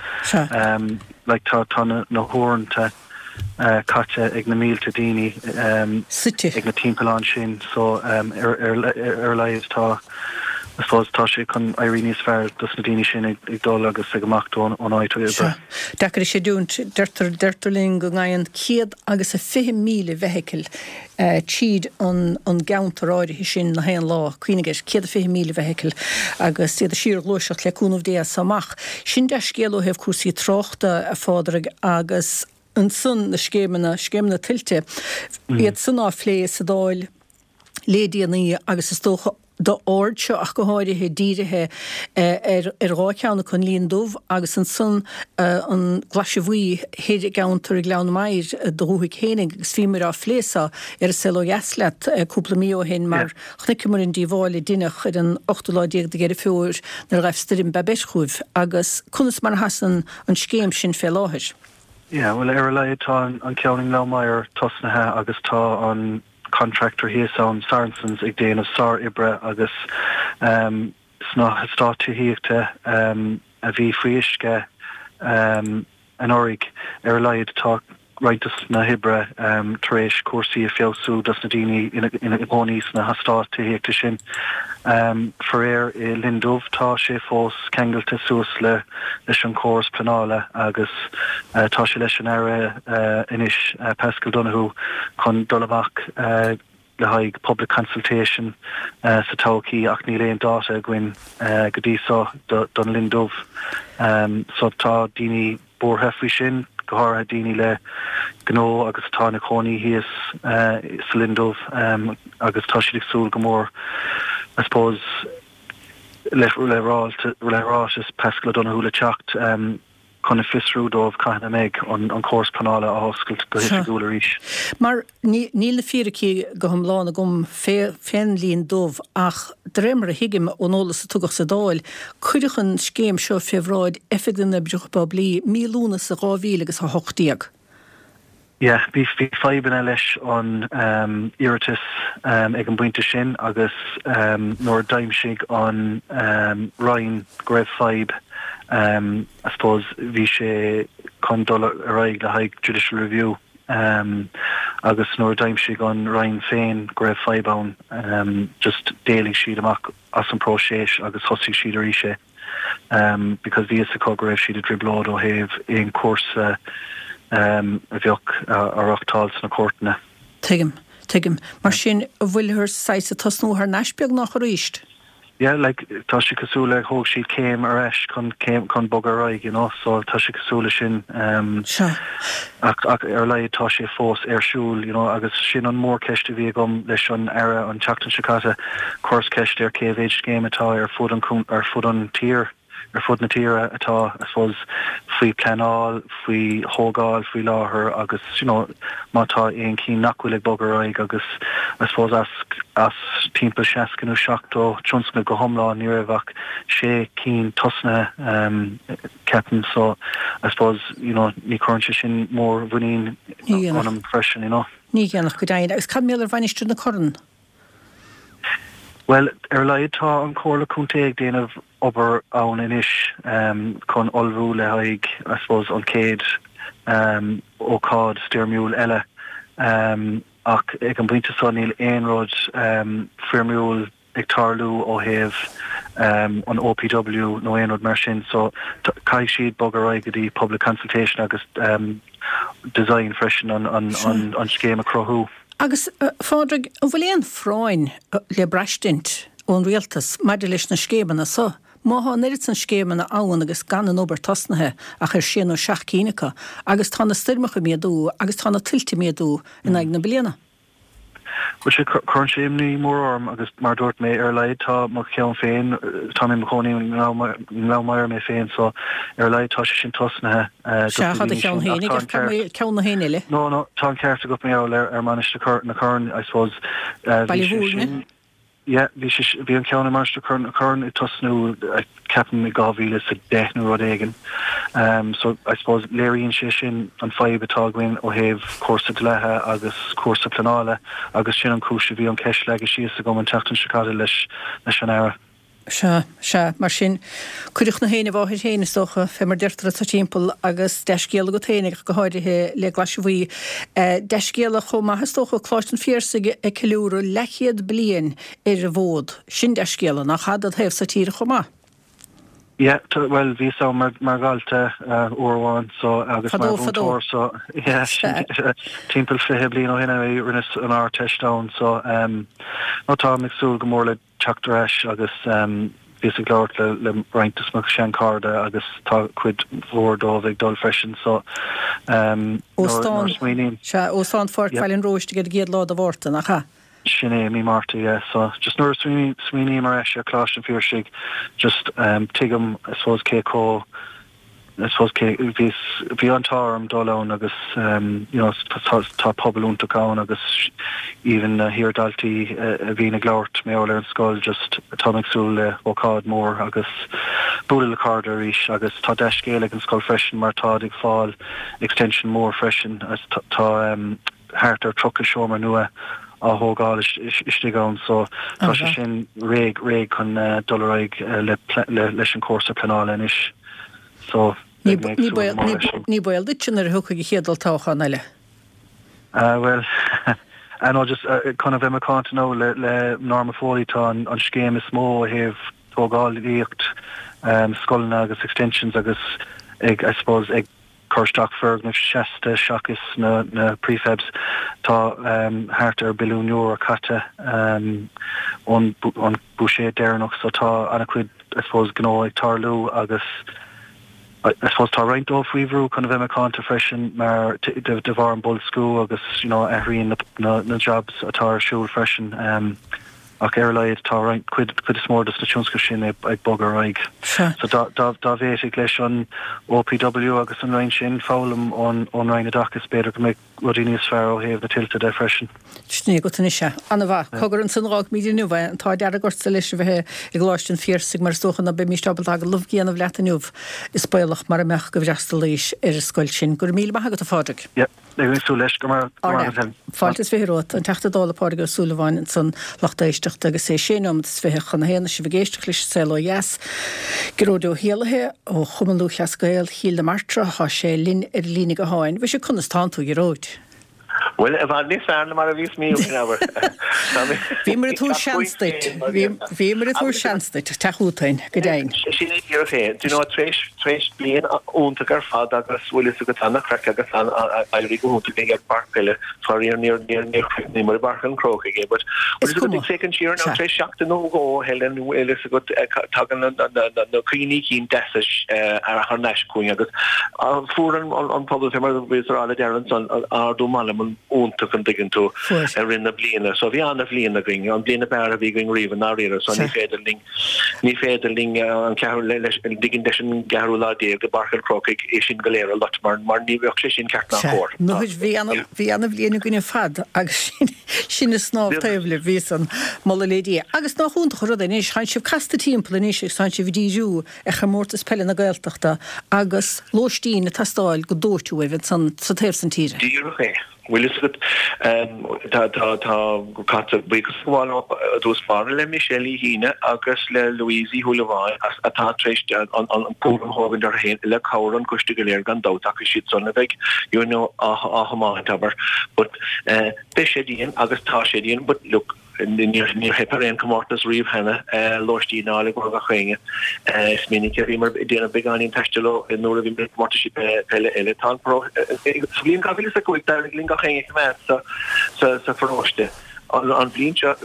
Like tá tá na na huaireanta caite ag na mílte daoine
Suite.
ag na timpealláin sin so ar ar ar a laghad tá I suppose tá sé chun éirí níos fearr dos na daoine sin ag ag dul agus ag imeacht ón ón áit oibre.
Sea. Deacair a chreidiúint. Deirtear deirtear linn go ngabhann 100 agus a 20,000 feithicil tríd an an gceantar áirithe sin na haon lá. Cuimhnigh air, 120,000 feithicil agus iad ag síorghluaiseacht le cúnamh Dé as so amach. Sin dea-scéal ó thaobh cúrsaí tráchta, a Phádraig, agus ansan na scéimeanna, scéimeanna tuilte, iad san á phlé sa Dáil le déanaí agus is dócha d'aird seo ach go háirithe dírithe ar ar dhá cheann acu, an Linn Dubh agus ansan an Glaise Bhuí thoir i gceantar Ghleann Maghair do dhúthaigh fhéinig agus bhíomar á phlé so ar an Saol Ó Dheas leat cúpla mí ó shin mar chonaiceamar an díobháil a deineadh ar an ochtú lá déag de Dheireadh Fómhair nuair a ghaibh stoirm Babet chugaibh agus conas mar a sheasann an scéim sin fé láthair.
Yeah, bhuel ar a laghad tá an ceann i nGleann Maghair tosnaithe agus tá an contractor thíos ann, Saracens, ag déanamh sár-oibre agus sna heastáit tithíochta a bhí faoi uisce anuraidh, ar a laghad tá roinnt dos na hoibre tar éis cúrsaí a feabhsú dos na daoine ina gcónaí sna heastáit tithíochta sin. Faraor i Linn Dubh tá sé fós ceangailte suas le leis an chóras pleanála agus tá sé leis an Aire anois, Paschal Donohoe, chun dul amach le haghaidh public consultation sa todhchaí ach níl aon dáta againn go dtí so don Linn Dubh. So tá daoine buartha faoi sin, go háirithe daoine le gnó agus atá ina cónaí thíos sa Linn Dubh agus tá siad ag súil go mór I suppose, le ráiteas Paschal O'Donohoe le teacht chun a fiosrú dóibh cathain a mbeidh an córas pleanála á oscailt go hoifigiúil arís.
Mar níl na fíricí go hiomlán agam fén Linn Dubh ach de réir mar a thuigim ón eolas a tugadh sa Dáil, cuireadh an scéim seo fé bhráid Oifig na nOibreacha Poiblí mí Lúnasa 2018.
Yeah, bhí fadhbanna leis an iarratas ag an bpointe sin agus nuair a d'aimsigh an Roinn go raibh fadhb, I suppose bhí sé chun dul ar aghaidh le haghaidh judicial review agus nuair a d'aimsigh an Roinn féin go raibh fadhb ann, just d'éalaigh siad amach as an próiseas agus thosaigh siad arís é. because bhí fhios acu go raibh siad i dtrioblóid ó thaobh aon chúrsa a bheadh á reáchtáil sna cúirteanna.
Tuigim, tuigim. Mar sin, an bhfuilthear saghas ag tosnú thar n-ais beagnach arís?
Yeah, like, tá sé cosúil le thóg siad céim ar ais chun céim, chun bogadh ar aghaidh, you know, so tá sé cosúil le sin.
Sea.
Ach, ach ar a laghad tá sé fós ar siúl, you know, agus sin an mhórcheist a bhí agam leis an Aire an tseachtain seo caite, chuireas ceist air cé mhéid scéim atá ar fud an, ar fud an tír, ar fud na tíre atá, I suppose, faoi pleanáil, faoi thógáil faoi láthair agus, you know, má tá aon chinn nach bhfuil ag bogadh ar aghaidh agus, I suppose, as, as timpeall 60 nó 70 tionscnamh go hiomlán ní raibh ach sé cinn tosnaithe, ceapaim. So, I suppose, you know, ní chuireann sé sin mór-mhuinín ionam freisin, you know.
Ní dhéanfadh, go deimhin. Agus cad mar gheall ar Mhainistir na Corann?
Bhuel, ar a laghad tá an Chomhairle Contae ag déanamh obair ann anois chun ullmhú le haghaidh, I suppose, an chéad ócáid stoirmiúil eile. Ach ag an bpointe seo níl aon rud foirmiúil ag tarlú ó thaobh an OPW nó aon rud mar sin so caithfidh siad bogadh ar aghaidh go dtí public consultation agus design
freisin
an scéim a chruthú.
Agus, a Phádraig, an bhfuil aon phráinn le braistint ón Rialtas maidir leis na scéimeanna so? Má thá an oiread san scéimeanna ann agus gan an obair tosnaithe ach ar sé nó seacht cinn acu, agus tá na stoirmeacha ag méadú agus tá na tuilte ag méadú in aghaidh na bliana.
Bhuel, sea, cuireann sé imní mór orm agus mar a dúirt mé, ar a laghad tá mo cheann féin, tá mé i mo chónaí i nGleann Maghair mé féin so ar a laghad tá sé sin tosnaithe
dos na daoine sin ach tá an ceart. Ceann na héinne eile?
No, no, tá an ceart agat mar gheall ar Mainistir na Corann, I suppose.
Baile Mhúirne?
Yeah, bhí sé, bhí an ceann i Mainistir na Corann ag tosnú, ceapaim, i 2010 nó rud éigin. So, I suppose, léiríonn sé sin an fadhb atá againn ó thaobh cúrsa dlíthe agus cúrsa pleanála agus sin an chúis a bhí an cheist leagtha síos agam an tseachtain seo caite leis leis an Aire.
Sea, sea, mar sin, cuireadh na héin i bhfáthair féin, is dócha, fé mar deirtear anso timpeall, agus dea-scéala agat féin, ach go háirithe le Glaise Bhuí. Dea-scéala chomh maith, is dócha, Coláiste an Phiarsaigh ag ceiliúradh leathchéad bliain ar an bhfód. Sin dea-scéala, nach ea, dod thaobh-sa tíre chomh maith?
Yeah, bhuel, bhíos ann mar, mar dhalta uair amháin, so, agus mar mhúinteoir, so, yeah, timpeall 20 bliain ó shin a rinneas an Ardteist ann, so, no, táim ag súil go mór le teacht ar ais agus bhíos ag labhairt le le roinnt de mo sheanchairde agus tá cuid mhór dóibh ag dul freisin so
nuair a smaoiním. Sea, Óstán Pháirc Bhaile an Róistigh ar an gcéad lá de Mhárta, nach ea?
Sin é, mí Márta, yeah. So just nuair a smaoiním ar ais ar Choláiste an Phiarsaigh just tuigim I suppose cé chomh I suppose cé, bhí, bhí an t-ádh orm dul ann agus you know tá, tá pobal iontach ann agus even na hiar-dhaltaí a bhíonn ag labhairt mar gheall ar an scoil just táim ag súil le hócáid mór agus bualadh le cairde arís agus tá dea-scéal ag an scoil freisin mar táid ag fáil extension mór freisin agus tá thart ar 30 seomra nua á thógáil istigh ann so tá sé sin réidh réidh chun dul ar aghaidh le leis an cúrsa pleanála anois so
beidh mé ag súil go mór leis sin. Ní baol duitse nuair a thiocfaidh an chéad olltoghchán eile?
Bhuel I know just chun a bheith macánta now le le Norma Foley tá an scéim is mó ó thaobh tógálaíocht scoileanna agus extensions agus ag I suppose ag cur isteach foirgnimh seasta seachas na prefabs. Tá thart ar billiún euro caite ón buiséad deireanach so tá an-chuid I suppose gnó ag tarlú agus I suppose tá roinnt dóibh faoi bhrú chun a bheith macánta freisin mar de bharr an boilsciú agus you know athraíonn na jobs atá ar siúl freisin. Ach ar a laghad tá roinnt, cuid, cuid is mór dos na tionscnaimh sin ag bogadh ar aghaidh.
Sea.
So dá, dá, dá bhféadfadh leis an OPW agus an Roinn sin foghlaim ón, ón Roinn Oideachais b'fhéidir go mbeadh rudaí níos fearr ó thaobh na tuilte de freisin.
Sin é agat anois é. Ana-mhaith. Cogar ansan a dh'fhágfaimid inniu é. An t-ádh dearg ortsa leis a bheith i gColáiste an Phiarsaigh mar is dócha ná beimíst ábalta agallamh a dhéanamh leat inniu. Is baolach mara mbeadh go bhfreastalaís ar an scoil sin. Go raibh míle maith agat a Phádraig.
Yep. Beidh mé ag súil leis. Go raibh maith agat Helen.
Fáilte is 20 romhat. An Teachta Dála Pádraig Ó Súilleabháin ansan lucht éisteachta agus é sé nóimeat is 20 chun a haon is sibh ag éisteacht leis an Saol Ó Dheas. Gearóid Ó hÉallaithe ó Chumann Lúthchleas Gael Chill na Martra, thá sé linn ar an líne gutháin. Mhuise conas tánn tú a Ghearóid?
Bhuel, i bhfad níos fearr ná mar a bhíos mí ó shin, abair.
Bhíomar ag tabhairt seans duit. Bhíomar ag tabhairt seans duit, teacht chugainn, go deimhin.
Sin é díreach é. Do you know, tar éis, tar éis bliain iontach ar fad agus bhfuil fhios agat an-chraic agus an-éirí go hiontach linn ar an bpáirc peile, faraor níor, níor, níor chríochnaíomar i bPáirc an Chrócaigh é, but bhfuil fhios agat, ag féachaint siar now, tar éis seachtain nó dhó, Helen, bhfuil fhios agat, tagann na cuimhní cinn deasa thar n-ais chugainn agus fuair an pobal, fé mar a bhíos a rá le Darren ansan, ardú meanman iontach an dtuigeann tú, i rith na bliana. So bhí an-bhliain againn, an bhliain ab fhearr a bhí againn riamh i ndáiríre. So ní féidir linn, ní féidir linn an ceathrú, leis, ligint leis an gceathrú lá déag i bPáirc an Chrócaigh é sin go léir a loit mar, mar ní bheadh sé sin ceart ná cóir.
Nuair bhí ana, bhí ana-bhliain againn ar fad agus sin, sin ag snámh taobh libh, bhí san, moladh le Dia. Agus nach iontach an rud é anois, tánn sibh casta timpeall anois agus tánn sibh ag díriú ar chomórtas peile na Gaeltachta agus lóistín ag teastáil go dóite uaibh ansan sa taobh san tíre.
Díreach é. Bhfuil fhios agat, tá, tá, tá, caithfear buíochas a ghabháil i dtús báire le Michelle Uí hAoine agus le Louise Uí Shúilleabháin as, atá tar éis an, an, an cúram a thógaint orthu féin le cabhair an choiste go léir gan dabht ach is iad san a bheidh, you know, á, á thiomáint, abair. But, eh, beidh sé dian agus tá sé dian but look, Níor theip ar aon chomórtas riamh cheana lóistín a fháil i gcomhair gach éinne. Is minic a bhíomar ag déanamh beagáinín taistil ó nuair a bhíomar ag comórtaisí peile eile. Tá an Sa bhliain 2005 d'éirigh linn gach éinne a choimeád sa pharóiste. An bhliain seo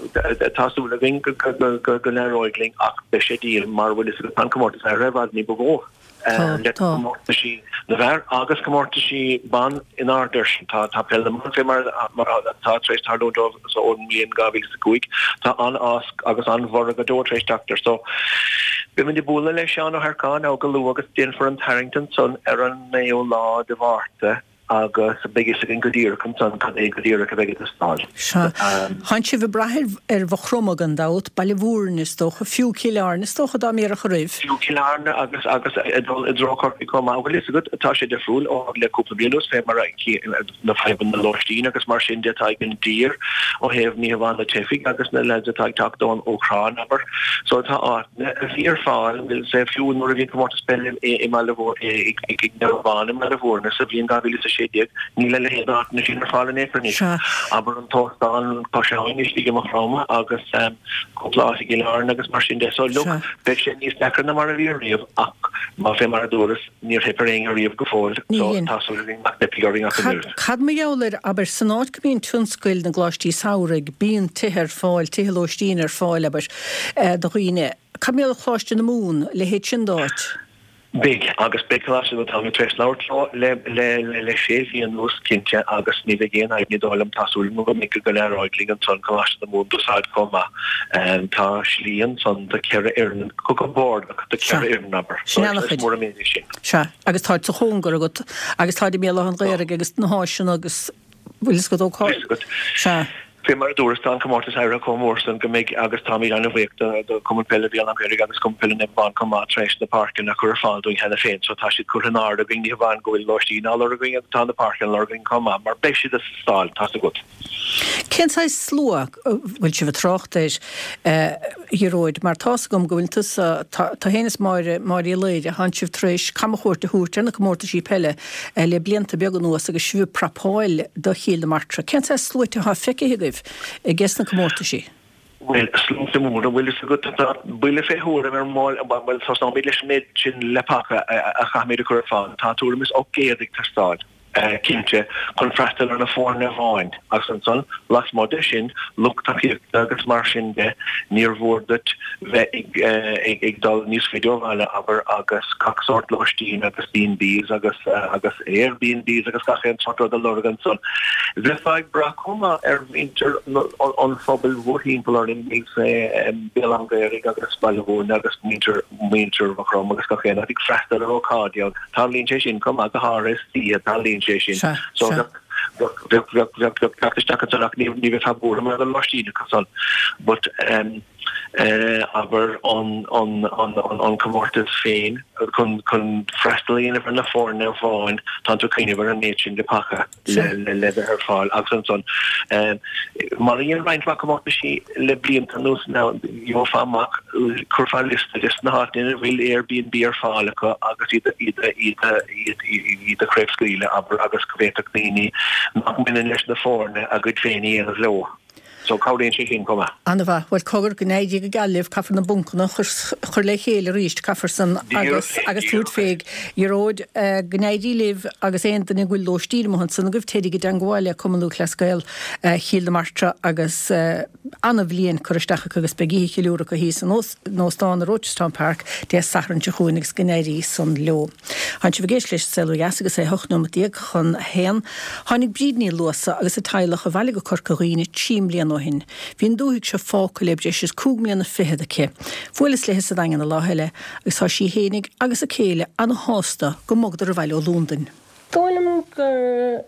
tá súil againn go n-éireoidh linn ach beidh sé dian mar bhfuil fhios agat tá an comórtas ar i bhfad ní ba mhó. le comórtaisí na bhfear agus comórtaisí ban in airde air sin. Tá Peil na mBan fé mar atá tar éis tarlúint dóibh ón mbliain 2005. Tá an-fhás agus an-bhorradh go deo tar éis teacht air. So, beimid ag bualadh le Seán Ó hEarcáin now go luath agus déanfar an tarraingt ansan ar an 9ú lá de Mhárta. agus beidh fhios againn go díreach ansan cad é go díreach a bheidh ag teastáil.
Sea. Tánn sibh ag brath ar Mhaigh Chromtha gan dabht, Baile Mhúirne is dócha, fiú Cill Airne is dócha dá mb'iarraidh a roimh.
Fiú Cill Airne agus agus ag dul i dtreo Chorcaí chomh maith. Bhfuil fhios agat, tá sé difriúil ó le cúpla bliain anuas fé mar a na fadhbanna lóistín agus mar sin de atá ag an dtír ó thaobh ní hamháin na teifigh agus na lads atá ag teacht ón Úcráin, abair. So tá áit. a bhí ar fáil, say, fiú nuair a bhí an comórtas peile i mBaile i Naomh Abán i mBaile Mhúirne sa bhliain 2016, níl a leithéid d'áiteanna sin ar fáil in aon chor anois. Abair an t-óstán Cois Abhainn istigh i Maigh Chromtha agus cúpla áit i gCill Airne agus mar sin de. So look, beidh sé níos deacra ná mar a bhí riamh ach má fé mar a dúras, níor theip ar éinne riamh go fóill so tá súil againn nach dteipfidh orainn ach an oiread.
Cad mar gheall air, abair, san áit go mbíonn tionscail na gcoláistí samhraidh, bíonn tithe ar fáil, tithe lóistín ar fáil, abair, do dhaoine. Cad mar gheall ar Choláiste na Mumhan, a leithéid sin d'áit?
Beidh, agus beidh Coláiste na Táimid tar éis labhairt leo le le le sé mhí anuas, cinnte, agus ní bheidh aon fhadhb ní dóigh liom, tá súil agam go mbeidh go n-éireoidh linn ansan Coláiste na Mumhan d'úsáid chomh maith. Tá slí ansan do cheithre fhoireann, go compordach do
Sea.
cheithre fhoireann, abair.
Sin
ana-chuid. Is mór an méid é sin.
Sea, agus táid sa chóngar agat, agus táid i mBéal Átha an Ghaorthaidh agus na háiseanna agus, bhfuil fhios agat ó cá.
Bhfuil fhios agat.
Sea.
Fé mar a dúras, tá an comórtas éirithe chomh mór san go mbeidh, agus táimid an-bhuíoch do, do Chumann Peile Bhéal Átha an Ghaorthaidh agus Cumann Peile Naomh Abán chomh maith tar éis na páirceanna a chur ar fáil dúinn cheana féin. So tá siad curtha in airde againn, ní hamháin go bhfuil lóistín á lorg againn agus tá na páirceanna á lorg againn chomh maith, mar beidh siad ag teastáil, tá's agat.
Cén saghas slua a bhfuil sibh ag trácht air, a Ghearóid, mar tá's agam go bhfuil tusa, tá féin is Máire, Máire Uí Laoire, thánn sibh tar éis camchuairt a thabhairt ar na comórtaisí peile le blianta beaga anuas agus sibh ag prapáil do Chill na Martra. Cén saghas sluaite atá feicthe agaibh ages na comórtaisí?
Bhuel, sluaite móra, bhfuil fhios agat, tá buille fé thuairim ar mball, bhuel, tosnóimid leis an méid sin leapacha a chaithfimid a chur ar fáil. Tá tuairim is 800 ag teastáil. cinnte, chun freastal ar na foirne amháin, agus ansan, lasmuigh de sin, lucht tacaíochta agus mar sin de, níor mhór duit bheith ag dul níos faide ó bhaile, abair, agus gach sórt lóistín agus B&Bs agus agus Airbnbs agus gach aon sórt rud a lorg ansan. Bheifeá ag brath chomh maith ar mhuintir an phobail mhórthimpeall orainn, Béal Átha an Ghaorthaidh agus Baile Mhúirne agus muintir muintir Mhaigh Chromtha agus gach aon áit ag freastal ar ócáidí ann. Tarlaíonn sé sin chomh maith, go háirithe istoíche, tarlaíonn sé sin.
Sea,
So
sea.
bheadh, bheadh, bheadh, bheadh, bheadh teacht isteach ansan ach ní, ní bheifeá buartha mar gheall ar lóistín acu san. But, um. Abair an comórtas féin chun freastal a dhéanamh ar na foirne amháin, tánn tú ag cuimhneamh ar an méid sin de paca le bheith ar fáil agus ansan mar a dhein roinnt mhaith comórtaisí le blianta anuas now gheofá amach, chuirfeá liosta des na háiteanna ina bhfuil Airbnb ar fáil acu agus iad iad a chraobhscaoileadh, abair, agus go bhféadfadh daoine nach mbaineann leis na foirne a gcuid féin a dhéanamh leo. So cabhraíonn sé sin chomh maith.
An-mhaith. Bhuel, cogar, go n-éirí go geal libh, caithfear na buncanna a chur le chéile arís, caithfear san agus agus tabhairt fé. Ghearóid, go n-éirí libh agus aon duine go bhfuil lóistín amuigh ansan agaibh, téiríg i dteangmháil le Cumann Lúthchleas Gael Chill na Martra agus an-bhliain curtha isteach acu agus beidh oíche cheiliúrtha acu thíos in Óstán i Rochestown Park Dé Sathairn seo chugainn agus go n-éirí san leo. Tánn sibh ag éisteacht leis an Saol Ó Dheas agus é 18 nóimeat chun a haon. Tháinig Bríd Ní Luasa agus a teaghlach abhaile go Corca Dhuibhne 3 mbliana ó shin. Bhí an dúthaigh seo fágtha le breis is cúig mbliana fichead aici. Bhuaileas léi sa Daingean an lá eile agus tá sí fhéinig agus a céile ana-shásta go mbogadar abhaile ó Londain.
Dóigh liom gur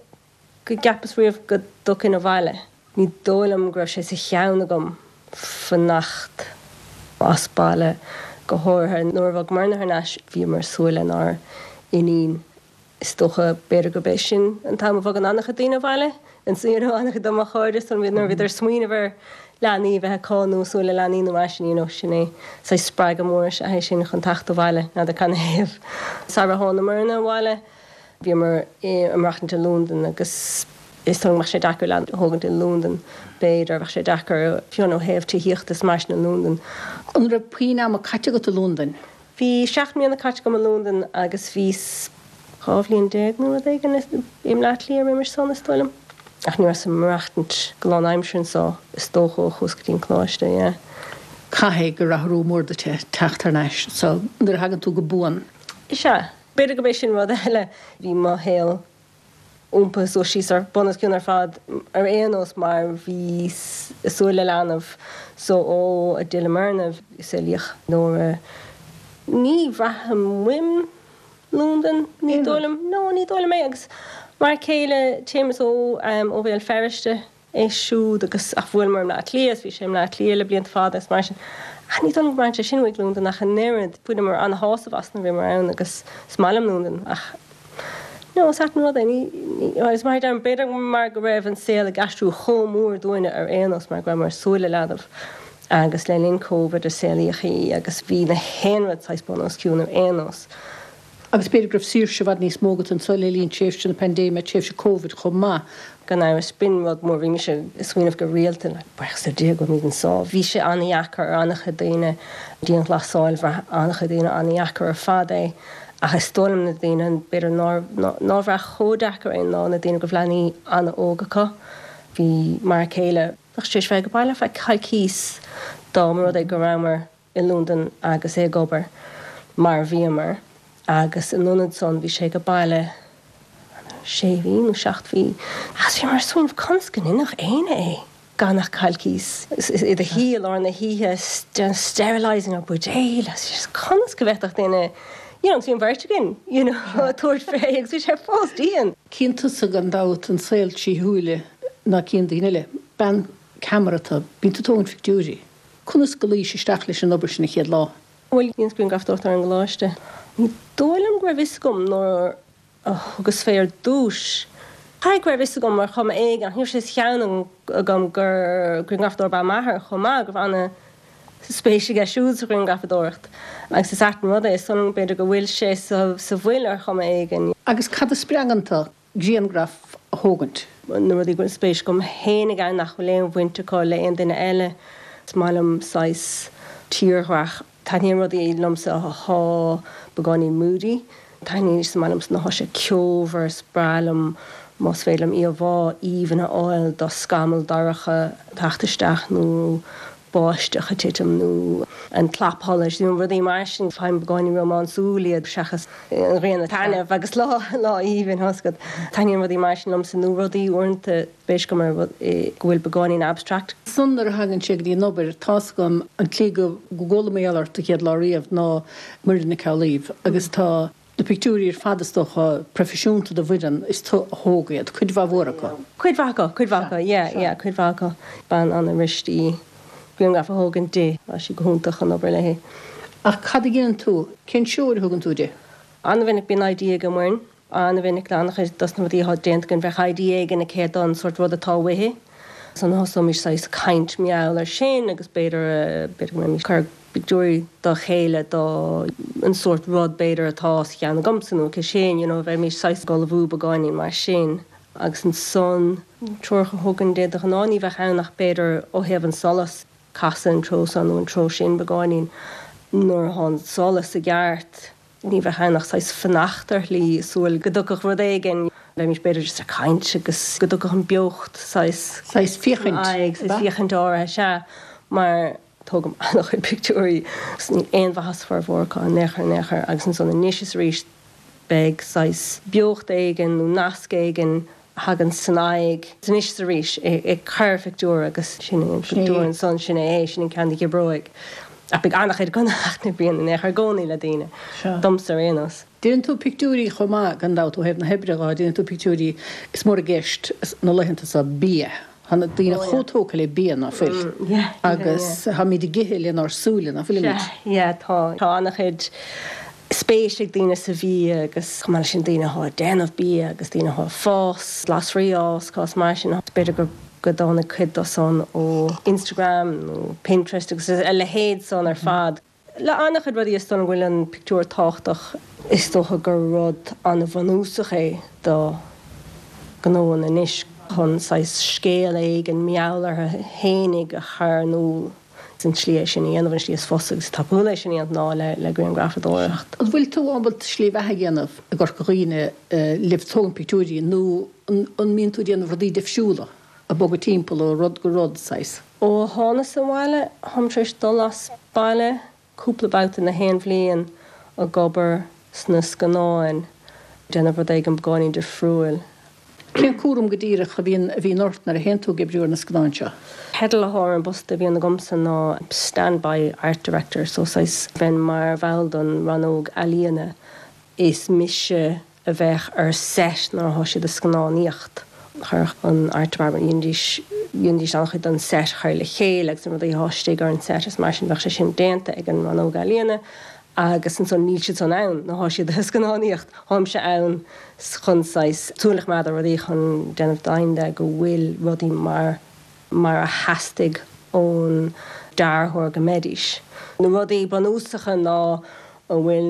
go gceapas riamh go dtiocfainn abhaile. Ní dóigh liom go raibh sé sa cheann agam fanacht as baile, go háirithe nuair a bhog Myrna thar n-ais, bhíomar ag súil lenár n-iníon. Is dócha, b'fhéidir gurb é sin an t-am a bhogann an-chuid daoine abhaile, you know, an-chuid de mo chairde, so nuair a bhíodar ag smaoineamh ar leanaí a bheith acu nó ag súil le leanaí nó mar sin, you know, sin é saghas spreagadh mór is ea é sin chun teacht abhaile, n'fheadar canathaobh. Sara tháinig Myrna abhaile, Bhíomar ag maireachtaint i Londain agus is dóigh liom go mbeadh sé deacair leanbh a thógaint i Londain, b'fhéidir, bheadh sé deacair fiú ó thaobh tithíochta is mar sin i Londain.
An raibh puinn ama caite agat i Londain?
Bhí 7 mbliana caite agam i Londain agus bhíos 12 bhliain nó rud éigin i mBleá Cliath roimis san, is dóigh liom. Ach ní rabhas ag maireachtaint go lán-aimseartha anso, is dócha, ó chuas go dtí an coláiste, yeah.
Caithfidh gur athrú mór duit é teacht thar n-ais anso nuair a thagann tú go buan.
Is ea. B'fhéidir gurb é sin rud eile. Bhí mo shaol iompaithe suas síos ar bun os cionn ar fad ar aon nós mar bhíos ag súil le leanbh so ó a d'fhill Myrna saolaíodh Nóra. Ní bhraithim uaim Londain, ní dóigh liom. No, ní dóigh liom é agus m'fhear céile Séamus ó ó Bhéal Feirste. é siúd agus ach bhuaileamar i mBleá Cliath is bhí sé i mBleá Cliath le blianta fada is mar sin. Ach ní dóigh liom go mbraitheann sé sin uaidh Londain ach an oiread. Bhaineamar ana-shásamh as nuair a bhíomar ann agus is maith liom Londain ach no, is ait an rud é. Ní, ní, agus mar a deirim, b'fhéidir mar go raibh an saol ag aistriú chomh mór dúinne ar aon nós mar go rabhamar ag súil le leanbh agus le linn Covid a saolaíodh í agus bhí na haon rud saghas bun os cionn ar aon nós.
Agus b'fhéidir go raibh saoirse i bhfad níos mó agat anso le linn tréimhse na paindéime, tréimhse Covid chomh maith.
Gan amhras, b'in rud mór. Bhí mise ag smaoineamh go rialta, like, buíochas le Dia go bhfuilimid anso. Bhí sé an-dheacair ar an-chuid daoine, dianghlasáil, bhraith an-chuid daoine an-dheacair ar fad é. Ach is dóigh liom na daoine, b'fhéidir nár, nár bhraith chomh deacair é ná na daoine go raibh leanaí an-óg acu. Bhí m'fhear céile, bheadh sé tar éis bheith ag baile ar feadh coicíos dá mba rud é go rabhamar i Londain agus é ag obair, mar a bhíomar, agus in ionad san bhí sé ag baile sé mhí nó seacht mhí agus bhíomar ag smaoineamh conas go ndéanfadh éinne é gan ach coicís i do shuí i lár na hoíche déanamh sterilising ar buidéil agus conas go bhféadfadh duine you know agus bhí an bheirt againn you know ag tabhairt fé agus bhí sé fós dian.
Cíonn tusa gan dabht an saol trí shúile ná cíonn daoine eile. Bean ceamara tú, bíonn tú ag tógaint pictiúirí. Conas go luís isteach leis an obair sin an chéad lá?
Bhuel, dheineas grianghrafadóireacht ar an gcoláiste. Ní dóigh liom go raibh fhios agam nuair a thugas fé ar dtúis. Caithfidh go raibh fhios agam ar chuma éigin, ach ní raibh sé sa cheann agam gur grianghrafadóir ab ea m'athair chomh maith, go raibh ana spéis aige siúd sa ghrianghrafadóireacht. Agus is ait an rud é, is dóigh liom b'fhéidir go bhfuil sé sa bhfuil ar chuma éigin.
Agus cad a spreagann tú? grianghraf a thógaint.
Na rudaí go bhfuil spéis agam fhéinig ann nach bhfuil aon bhaint acu le aon duine eile. Is maith liom saghas tírdhreach. Taitníonn rudaí liomsa athá beagáinín moody. Taitníonn, is maith liomsa nuair athá sé ceomhar, is breá liom más féidir liom íomhá aoibhinn a fháil de scamall dorcha ag teacht isteach nó báisteach ag titim nó an clapsholais nó rudaí mar sin. Faighim beagáinín rómánsúil iad seachas an ghrian ag taitneamh agus lá lá aoibhinn tá a fhios agat. Taitníonn rudaí mar sin liomsa nó rudaí uaireanta spéis agam ar go bhfuil beagáinín abstract.
San nuair a thagann sé go dtí an obair, tá's agam an tslí go gcuala mé ort an chéad lá riamh ná Muireann Nic Amhlaoibh agus tá Na pictiúirí ar fad is dócha, proifisiúnta do Mhuireann, is tú a thóg iad, cuid mhaith mhór acu.
Cuid mhaith acu, cuid mhaith acu, yeah, yeah, cuid mhaith acu. Bean an-fhuirist í. Grianghraf a thógaint di. Tá sí go hiontach chun obair léi.
Ach cad a dhéanann tú? Cén treoir a thugann tú di?
An-mhinic bíonn idea ag Muireann. An-mhinic le an-chuid dos na rudaí atá déanta againn bheadh idea éigin aici don sórt rud atá uaithi. Ansan thosóimis saghas caint mar gheall ar sin agus b'fhéidir, b'fhéidir go mbeimis ag cur pictiúirí dá chéile do an sórt rud b'fhéidir atá sa cheann agamsa nó aici sin, you know, bheimis saghas ag ullmhú beagáinín mar sin. Agus ansan, treoracha a thugaim di de ghnáth ní bheadh ann ach b'fhéidir ó thaobh an solas, casadh an treo seo nó an treo sin beagáinín nuair atá an solas i gceart, ní bheadh ann ach saghas fanacht ar shlí, súil go dtiocfadh rud éigin, bheimis b'fhéidir just ag caint agus go dtiocfadh an beocht saghas.
Saghas féachaint,
saghas féachaint áirithe, sea, mar tógaim an-chuid pictiúirí agus níl aon mhaitheas formhór acu in aon chor in aon chor agus ansan anois is arís beidh saghas beocht éigin nó nasc éigin a thagann san aghaidh anois is arís ag cur phictiúr agus sin é an pictiúr ansan, sin é é, sin an ceann a dh'oibreoidh. Ach beidh an-chuid acu nach n-oibríonn in aon chor i gcónaí le daoine, domsa ar aon nós.
Déanann tú pictiúirí chomh maith, gan dabht, ó thaobh na hoibre dhó, déanann tú pictiúirí, is mór i gceist na laethanta seo bia. Tá na daoine chomh tógtha le bia, ná fuil? Agus táimid ag ithe lenár súile, ná fuilimid?
Yeah, tá. Tá an-chuid spéis ag daoine sa bhia agus chomh maith leis sin daoine atá ag déanamh bia agus daoine atá ag fás glasraí a fhás, cás mar sin. B'fhéidir go go dtáinig cuid dó san ó Instagram nó Pinterest agus a leithéid san ar fad. Le an-chuid rudaí is dóigh liom go bhfuil an pictiúr tábhachtach. Is dócha gur rud an-bhunúsach é do ghnóanna anois chun saghas scéal éigin mar gheall orthu fhéinig a chur in iúl. An tslí é sin a dhéanamh, an tslí is fusa agus is tapúla é sin a dhéanamh ná le grianghrafadóireacht.
An bhfuil tú ábalta slí bheatha a dhéanamh i gCorca Dhuibhne le tógaint pictiúirí nó an mbíonn tú ag déanamh rudaí difriúla, ag bogadh timpeall ó rud go rud, saghas?
Ó thánas abhaile, táim tar éis dul as baile cúpla babhta na haon bhliain ag obair sna scannáin, déanamh rud éigin beagáinín difriúil.
Cén cúram go díreach a bhíonn a bhíonn ort nuair a théann tú ag oibriú ar na scannáin seo?
Teideal atá ar an bpost a bhíonn agamsa ná Standby Art Director, so saghas bheinn mar bhall don rannóg ealaíona. Is mise a bheadh ar set nuair atá siad ag scannánaíocht. Chuirfeadh an art department, dheinidís, dheinidís an-chuid den set a chur le chéile agus na rudaí atá istigh ar an set is mar sin bheadh sé sin déanta ag an rannóg ealaíona agus ansan níl siad san ann nuair atá siad ag scannánaíocht. Táimse ann chun saghas súil a choimeád ar rudaí chun déanamh deimhin de go bhfuil rudaí mar mar a theastaigh ón dearthóir go mbeidís. Na rudaí bunúsacha ná an bhfuil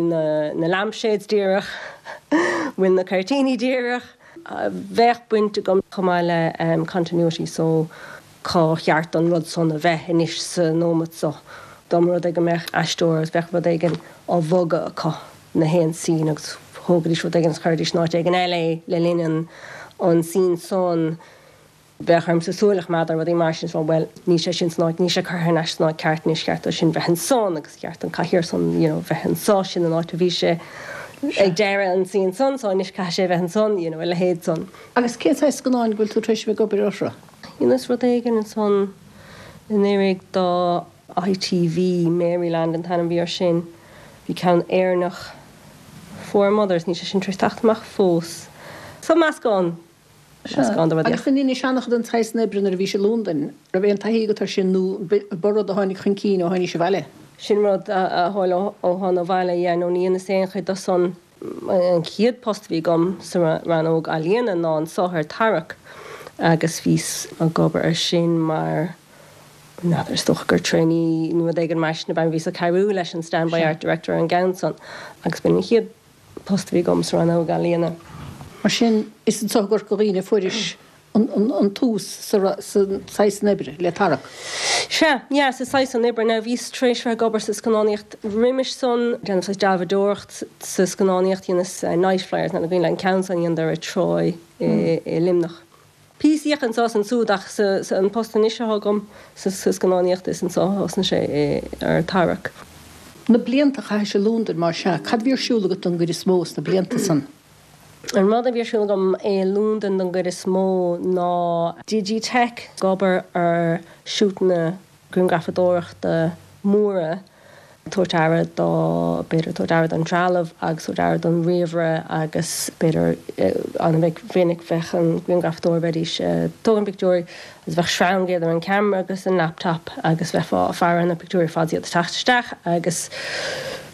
na lampshades díreach, an bhfuil na cuirtíní díreach. Bheadh baint agam chomh maith le continuity so cá cheart don rud san a bheith anois sa nóimeat so. Dá mba rud é go mbeadh aisteoir agus bheadh rud éigin á bhogadh acu na haon scene agus thógaidís rud éigin agus chuiridís in áit éigin eile é le linn an scene san, Bheadh ormsa súil a choimeád ar rudaí mar sin is rá bhuel, níl sé sin san áit, níl sé curtha thar n-ais san áit ceart anois, cheart dó sin bheith ansan agus cheart don cathaoir san you know bheith anso, sin an áit a bhí sé ag deireadh an scene san so anois caithfidh sé bheith ansan you know a leithéid san.
Agus cén saghas scannáin go bhfuil tú tar éis a bheith ag obair orthu?
Dheineas rud éigin ansan anuraidh do ITV, Maryland an t-ainm a bhí air sin, bhí ceann Éireannach Four Mothers, níl sé sin tar éis teacht amach fós. So meascán
Meascán de rudaí. Agus an ndeinis an-chuid den tsaghas san oibre nuair a bhís i Londain, raibh aon taithí agat air sin nó ba rud a tháinig chun cinn ó tháinís abhaile?
Sin rud a tharla ó thána abhaile, yeah, nó ní dheineas aon chuid de san. An chéad post a bhí agam sa rannóg ealaíona ná anso ar Tarrac agus bhíos ag obair ar sin mar, n'fheadar, is dócha gur trainee nó rud éigin mar sin ab ea, bhíos ag cabhrú leis an standby art director ar an gceann san agus b'in an chéad post a bhí agam sa rannóg ealaíona.
Mar sin, is anso i gCorca Dhuibhne a fuairis an tús sa saghas san oibre, le Tarrac.
Sea, yeah, sa saghas san oibre. Now, bhíos tar éis bheith ag obair sa scannánaíocht roimis san, déanamh saghas dealbhadóireacht sa scannánaíocht, dheineas Nightflyers, n'fheadar an cuimhin leat an ceann san a dheineadar ar Troy i Luimneach. Píosaíocht anso is ansúd ach sa an post anois atá agam sa scannánaíocht is anso a thosnaigh sé ar Tarrac.
Na blianta a chaithis i Londain mar sea, cad a bhí ar siúl agat don gcuid is mó sna blianta san?
An rud a bhí ar siúl agam i Londain don gcuid is mó ná Digitech, ag obair ar shútanna grianghrafadóireachta móra. Tabhairt aire do, b'fhéidir, tabhairt aire don trealamh agus tabhairt aire don ríomhaire agus b'fhéidir an-mhinic bheadh an grianghrafadóir, bheidís ag tógaint pictiúirí agus bheadh sreang idir an ceamara agus an laptop agus bheifeá ag faire ar na pictiúirí fad is iad ag teacht isteach agus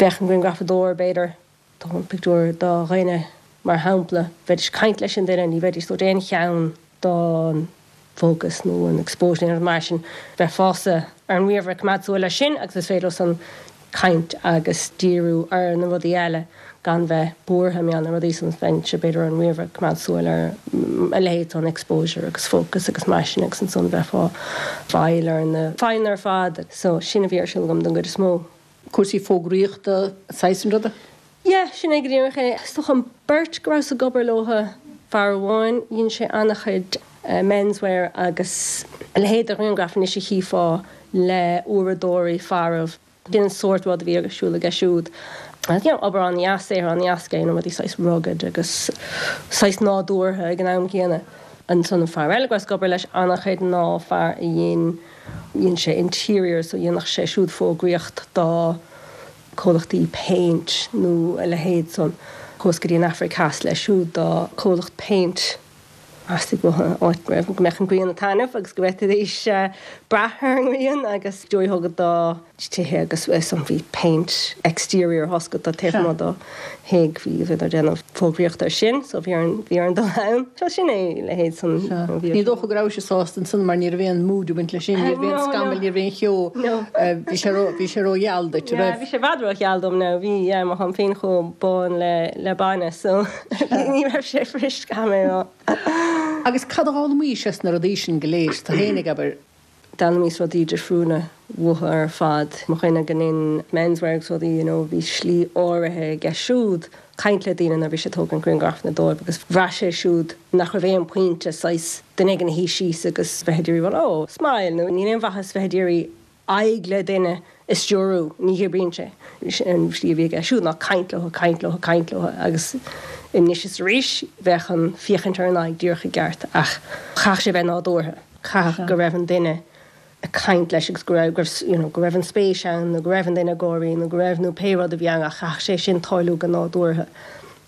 bheadh an grianghrafadóir, b'fhéidir, tógaint pictiúr do dhuine mar shampla, bheidís ag caint leis an duine, ní bheidís ag tabhairt aon cheann don focus nó an exposure nó aon rud mar sin, bheifeása ar an ríomhaire ag coimeád súil air sin agus is féidir leo san caint agus díriú ar na rudaí eile gan bheith buartha mar gheall ar na rudaí san, bheinnse b'fhéidir ar an ríomhaire ag coimeád súil ar a leithéid san exposure agus focus agus mar sin agus ansan bheifeá fáil ar na fadhbanna ar fad. So sin a bhí ar siúl agam don gcuid is mó.
Cúrsaí fógraíochta, saghas an ruda?
Yeah, sin é go díreach é. Is dócha an beirt go rabhas ag obair leo, fear amháin, dhein sé an-chuid menswear agus a leithéid de ghrianghraif anois a chífeá le uaireadóirí fearaibh. Sin an sórt rud a bhí ar siúl aige siúd. You know, obair an-dheas, saothar an-dheas aige, you know, rudaí saghas rugged agus saghas nádúrtha ag an am céanna. Ansan an fear eile go rabhas ag obair leis an-chuid ná fear a dhein, Dhein sé interiors so dhéanfadh sé siúd fógraíocht do comhlachtaí péint nó a leithéid san. Chuas go dtí an Afraic Theas leis siúd do comhlacht péint. Theastaigh uathu áit go raibh, go mbeadh an ghrian ag taitneamh agus go bhféadfaidís brath ar an ngrian agus pictiúirí a thógaint do tithe agus san bhí péint exterior thosca taobh amuigh do thigh, bhí, bhíodar ag déanamh fógraíocht ar sin so bhí orainn, bhí orainn dul ann. So sin é a leithéid san.
Sea. Ní dócha go rabhais sásta ansan mar ní raibh aon mood ag baint leis sin, ní raibh aon scamall, ní raibh aon cheo, bhí sé ró, bhí sé ró-gheal duit, an
raibh? Yeah, bhí sé i bhfad ró-gheal dom now, bhí, yeah, mar táim féin chomh bán le, le bainne so ní raibh sé fuirist, caithfidh mé a rá.
Agus cad a d'fhoghlaimís as na rudaí sin go léir, tú fhéinig, abair?
D'fhoghlaimíos rudaí difriúla uathu ar fad. Mo dhuine go ndein menswear agus rudaí, you know, bhí slí áirithe aige siúd caint le daoine nuair a bhí sé ag tógaint grianghrafanna dóibh agus bhraith sé siúd nach raibh aon pointe saghas duine éigin a shuí síos agus bheith ag iarraidh rá oh, smile nó níl aon mhaitheas bheith ag iarraidh aghaidh le duine a stiúrú, ní oibríonn sé. An slí a bhí aige siúd ná caint leo, caint leo, caint leo agus anois is arís bheadh an féachaint ar an aghaidh díreach i gceart ach chaithfeadh sé bheith nádúrtha, chaithfeadh go raibh an duine ag caint leis agus go raibh, go raibh, you know, go raibh an spéis ann nó go raibh an duine ag gáirí nó go raibh nó pé rud a bhí ann ach chaithfeadh sé sin tarlú go nádúrtha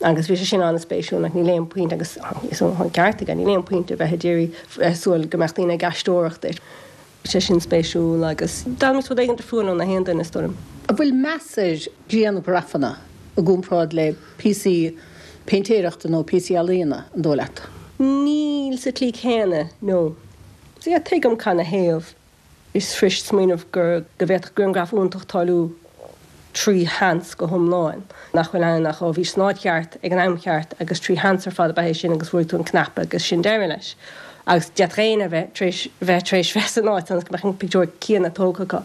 agus bhí sé sin an-spéisiúil like níl aon pointe agus is an ceart aige, níl aon pointe bheith ag iarraidh bheith ag súil go mbeadh daoine ag aisteoireacht duit. sé sin spéisiúil agus d'fhoghlaimíos rud éigin difriúil ó na haon duine, is dóigh liom.
An bhfuil meas ar ghrianghrafanna i gcomparáid le píosaí péintéireachta nó píosaí ealaíona, an dóigh leat?
Níl sa tslí chéanna, no. Yeah, tuigim canathaobh. Is fuirist smaoineamh gur, go bhféadfadh grianghraf iontach tarlú trí sheans go hiomlán, nach bhfuil ann ach ó bhís san áit cheart ag an am cheart agus trí sheans ar fad ab ea é sin agus bhrúigh tú an cnaipe agus sin deireadh leis. Agus d'fhéadfadh éinne a bheith tar éis bheith tar éis bheith san áit ionas go mbeadh an pictiúr céanna tógtha acu.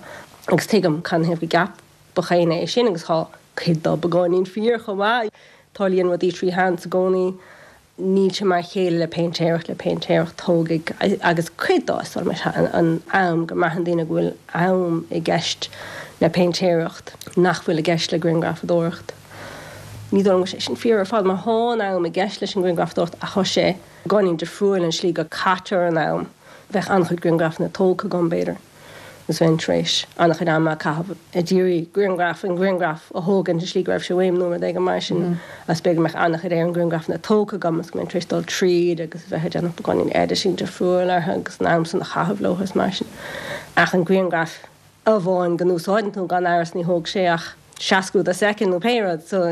Agus tuigim canathaobh go gceapfadh éinne é sin agus tá cuid dó beagáinín fíor chomh maith. Tarlaíonn rudaí trí sheans i gcónaí. Níl sé mar a chéile le péintéireacht, le péintéireacht tógfaidh, agus cuid dó is dóigh liom, an am, go mbraitheann daoine go bhfuil am i gceist le péintéireacht nach bhfuil i gceist le grianghrafadóireacht. Ní dóigh liom go bhfuil sé sin fíor ar fad mar thá an am i gceist leis an ngrianghrafadóireacht ach thá sé beagáinín difriúil an slí go caitear an am. Bheadh an-chuid grianghrafanna tógtha agam, b'fhéidir. agus bheinn tar éis an-chuid ama a chaitheamh ag iarraidh grianghraf, an grianghraf a thógaint i slí go raibh sé uaim nó rud éigin mar sin agus b'fhéidir go mbeadh an-chuid ar an ngrianghrafanna tógtha agam agus go mbeinn tar éis dul tríd agus a bheith ag déanamh beagáinín editing difriúil orthu agus an am san a chaitheamh leo is mar sin. Ach an grianghraf amháin go n-úsáideann tú gan amhras ní thóg sé ach seascadh de soicind nó pé rud so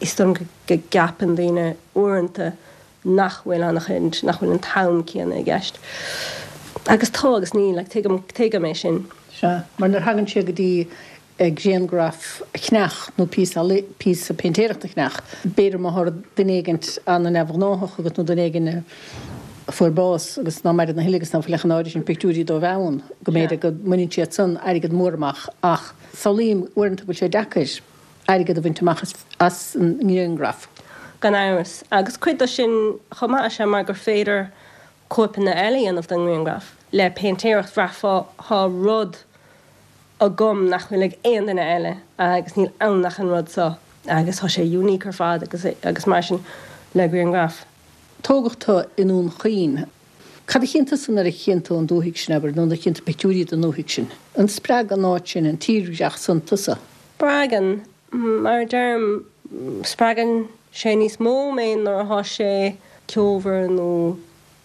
is dóigh liom go gceapann daoine uaireanta nach bhfuil an-chuid, nach bhfuil an t-am céanna i gceist. Agus tá agus níl, like, tuigim, tuigim é sin.
Sea, mar nuair a thagann sé go dtí grianghraf a cheannach nó píosa, píosa péintéireachta a cheannach, b'fhéidir má thá duine éigint an-neamhghnáthach agat nó duine éigin a fuair bás agus ná maireann a thuilleadh agus ná fuil ach an áirithe sin pictiúirí dóibh ann, go mb'fhéidir go mbaineann siad san airgead mór amach ach samhlaím uaireanta go bhfuil sé deacair. airgead a bhaint amach as an ngrianghraf.
Gan amhras. Agus cuid de sin chomh maith is ea mar gur féidir cóipeanna eile a dhéanamh den ngrianghraf. Le péintéireacht bhraithfeá thá rud agam nach bhfuil ag aon duine eile agus níl ann ach an rud seo agus thá sé unique ar fad agus agus mar sin le grianghraf.
Tógadh tú i nDún Chaoin. Cad a chíonn tusa nuair a chíonn tú an dúthaigh sin, abair, nó nuair a chíonn tú pictiúirí den dúthaigh sin? An spreag an áit sin, an tírdhreach san tusa?
Spreagann. Mar a deirim, spreagann sé níos mó mé nuair atá sé ceomhar nó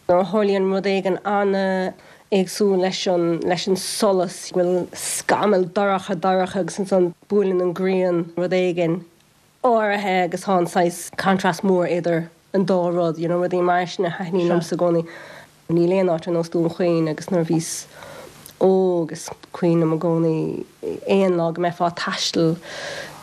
nuair a tharlaíonn rud éigin an-éagsúil leis an, leis an solas, go bhfuil scamall dorcha dorcha agus ansan buaileann an ghrian rud éigin áirithe agus tá an saghas contrast mór idir an dá rud, you know, rudaí mar sin a thaitníonn liomsa i gcónaí. Níl aon áit ar nós Dún Chaoin agus nuair a bhíos óg is cuimhin liom i gcónaí aon lá go mbeifeá ag taisteal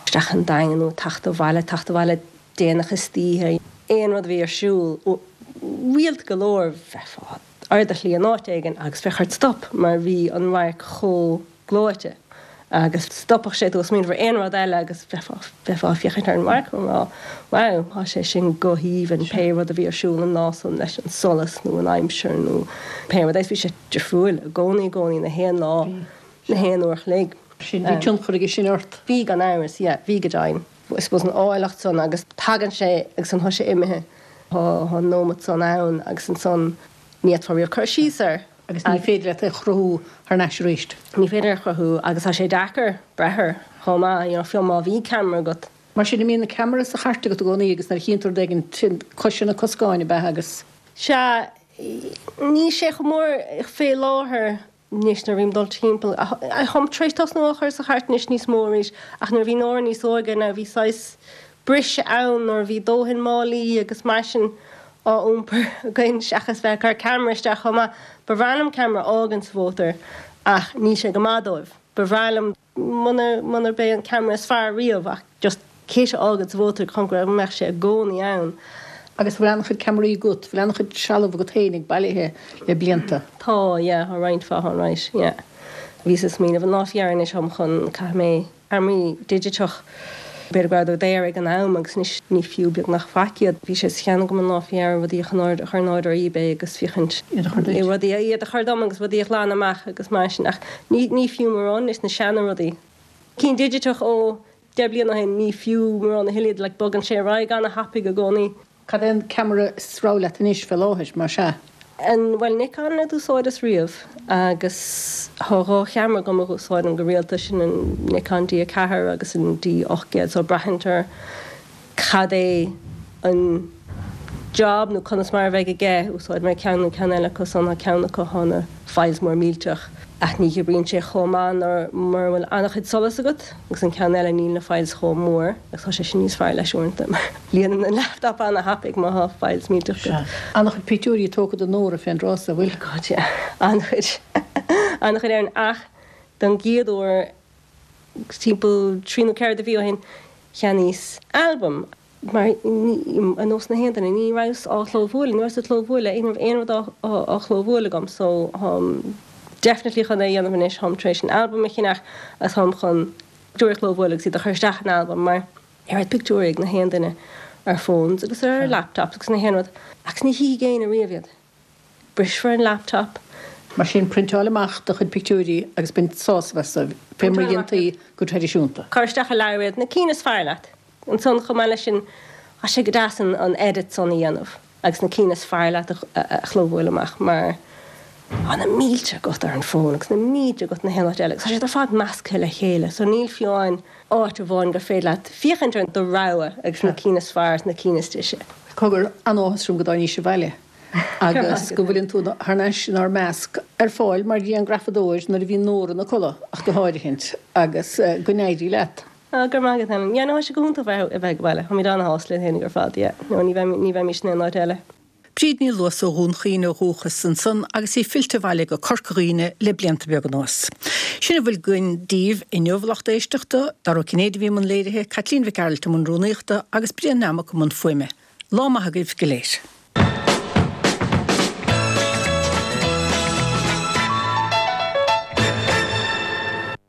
isteach an Daingean nó ag teacht abhaile, teacht abhaile déanach istoíche, aon rud a bhí ar siúl, rialta go leor bheifeá ar do shlí in áit éigin agus bheadh ort stop mar bhí an radharc chomh gleoite agus stopfadh sé tú ó smaoineamh ar aon rud eile agus bheifeá, bheifeá ag féachaint ar an radharc ag rá wow, tá sé sin go haoibhinn, pé rud a bhí ar siúl an lá san leis an solas nó an aimsir nó pé rud é, bhí sé difriúil i gcónaí, i gcónaí, na haon lá, na haon uair a chloig.
Sin, bhí tionchar aige sin ort?
Bhí gan amhras, yeah, bhí go deimhin. I suppose an áilleacht san agus tagann sé agus ansan tá sé imithe, tá an nóimeat san ann agus ansan ní fhéadfá riamh cur síos air.
Agus ní féidir leat é a chruthú thar n-ais arís.
Ní féidir é a chruthú agus tá sé deacair breith air chomh maith, you know, fiú má bhí ceamara agat.
Mar sin, an mbíonn an ceamara sa chairt agat i gcónaí agus nuair a chíonn tú rud éigin, sin cois ar na coscáin, ab ea? Agus.
Sea, níl sé chomh mór fé láthair anois nuair a bhím ag dul timpeall. Táim tar éis tosnú á chur sa chairt anois níos mó arís ach nuair a bhí Nóra níos óige now bhí saghas briseadh ann nuair a bhí dóthain málaí agus mar sin á iompar againn seachas bheith ag cur ceamara isteach chomh maith. Ba bhreá liom ceamara a fhágaint sa mhótar ach níl sé go maith dóibh. Ba bhreá liom muna munarb é an ceamara is fearr riamh ach just kit a fhágaint sa mhótar chun go mbeadh sé i gcónaí ann.
Agus bhfuil an-chuid ceamaraí agat, bhfuil an-chuid trealamh agat féinig bailithe le blianta?
Tá, yeah, tá roinnt mhaith ann, right, yeah. Bhíos ag smaoineamh an lá faoi dheireadh anois táim chun, caithfidh mé Ceamaraí digiteach. B'fhéidir go rabhadar daor ag an am agus anois ní fiú beagnach faic iad. Bhí sé sa cheann agam an lá faoi dheireadh rudaí a chur in airde ar eBay agus féachaint
Iad a chur duit.
rudaí iad a chur dom agus rudaí a ghlanadh amach agus mar sin ach ní ní fiú mórán anois na seana rudaí. Cinn digiteach ó 10 bliana ó shin ní fiú mórán a thuilleadh iad like bogann sé ar aghaidh ana-thapaidh i gcónaí.
Cad é an ceamara is rogha leat anois fé láthair, más ea?
An, bhuel, Nikon a d'úsáideas riamh agus thá 2 cheamara agam a dh'úsáidim go rialta, sin an Nikon D4 agus an D800 so braitheann ar cad é an job nó conas mar a bheidh aige, úsáidfidh mé ceann nó ceann eile acu san, thá ceann acu thá na files mór millteach ach ní oibríonn sé chomh maith nuair mura bhfuil an-chuid solais agat agus an ceann eile níl na files chomh mór agus tá sé sin níos fearr leis uaireanta mar líonann an laptop an-thapaidh má thá files millteach
agat. Sea. An-chuid pictiúirí tógtha de Nóra fén dtráth so, an bhfuil?
God yeah. An-chuid. An-chuid Erin ach don gcéad uair timpeall trí nó ceithre de mhí ó shin cheannaíos albam. Mar ar nós na haon duine, ní rabhas á chlóbhualadh, ní rabhas ag clóbhualadh, ní raibh aon rud á chlóbhualadh agam so táim definitely chun é a dhéanamh anois, táim tar éis an albam a cheannach agus táim chun pictiúirí a chlóbhualadh agus iad a chur isteach in albam mar oiread pictiúirí ag na haon duine ar phones agus ar laptops agus na haon rud agus ní chífidh éinne riamh iad. Brisfear an laptop.
Mar sin, priontáil amach do chuid pictiúirí agus bain sásamh astu, fé mar a dhéantaí go traidisiúnta.
Cuir isteach i leabhar iad, na cinn is fearr leat. Ansan, chomh maith leis sin, tá sé go deas an edit san a dhéanamh agus na cinn is fearr leat a chlóbhualadh amach mar tá na mílte agat ar an bhfón agus na mílte agat na haon áit eile agus tá siad ar fad measctha le chéile so níl fiú amháin áit amháin gur féidir leat féachaint ar do rogha agus na cinn is fearr is na cinn is deise.
Cogar, an-áthas orm go dtáinís abhaile agus go bhfuileann tú thar n-ais inár measc, ar fáil mar ghrianghrafadóir nuair a bhíonn Nóra ina codladh ach go háirithint, agus go n-éirí leat.
Ah, go raibh maith agat, Helen. Yeah, no, tá sé go hiontach bheith a bheith ag baile. Táimid ana-shásta linn féinig ar fad, yeah. No, ní bheim, ní bheimís in aon áit eile.
Bríd Ní Luasa ó Dhún Chaoin ó dhúchas ansan agus í fillte abhaile go Corca Dhuibhne le blianta beaga anuas. Sin a bhfuil againn daoibh inniu, a lucht éisteachta, Dara Ó Cinnéide a bhí i mbun léirithe, Caitlín Mhic Gearailt i mbun rúnaíochta agus Brian Nammock i mbun fuaime. Lá maith agaibh go léir.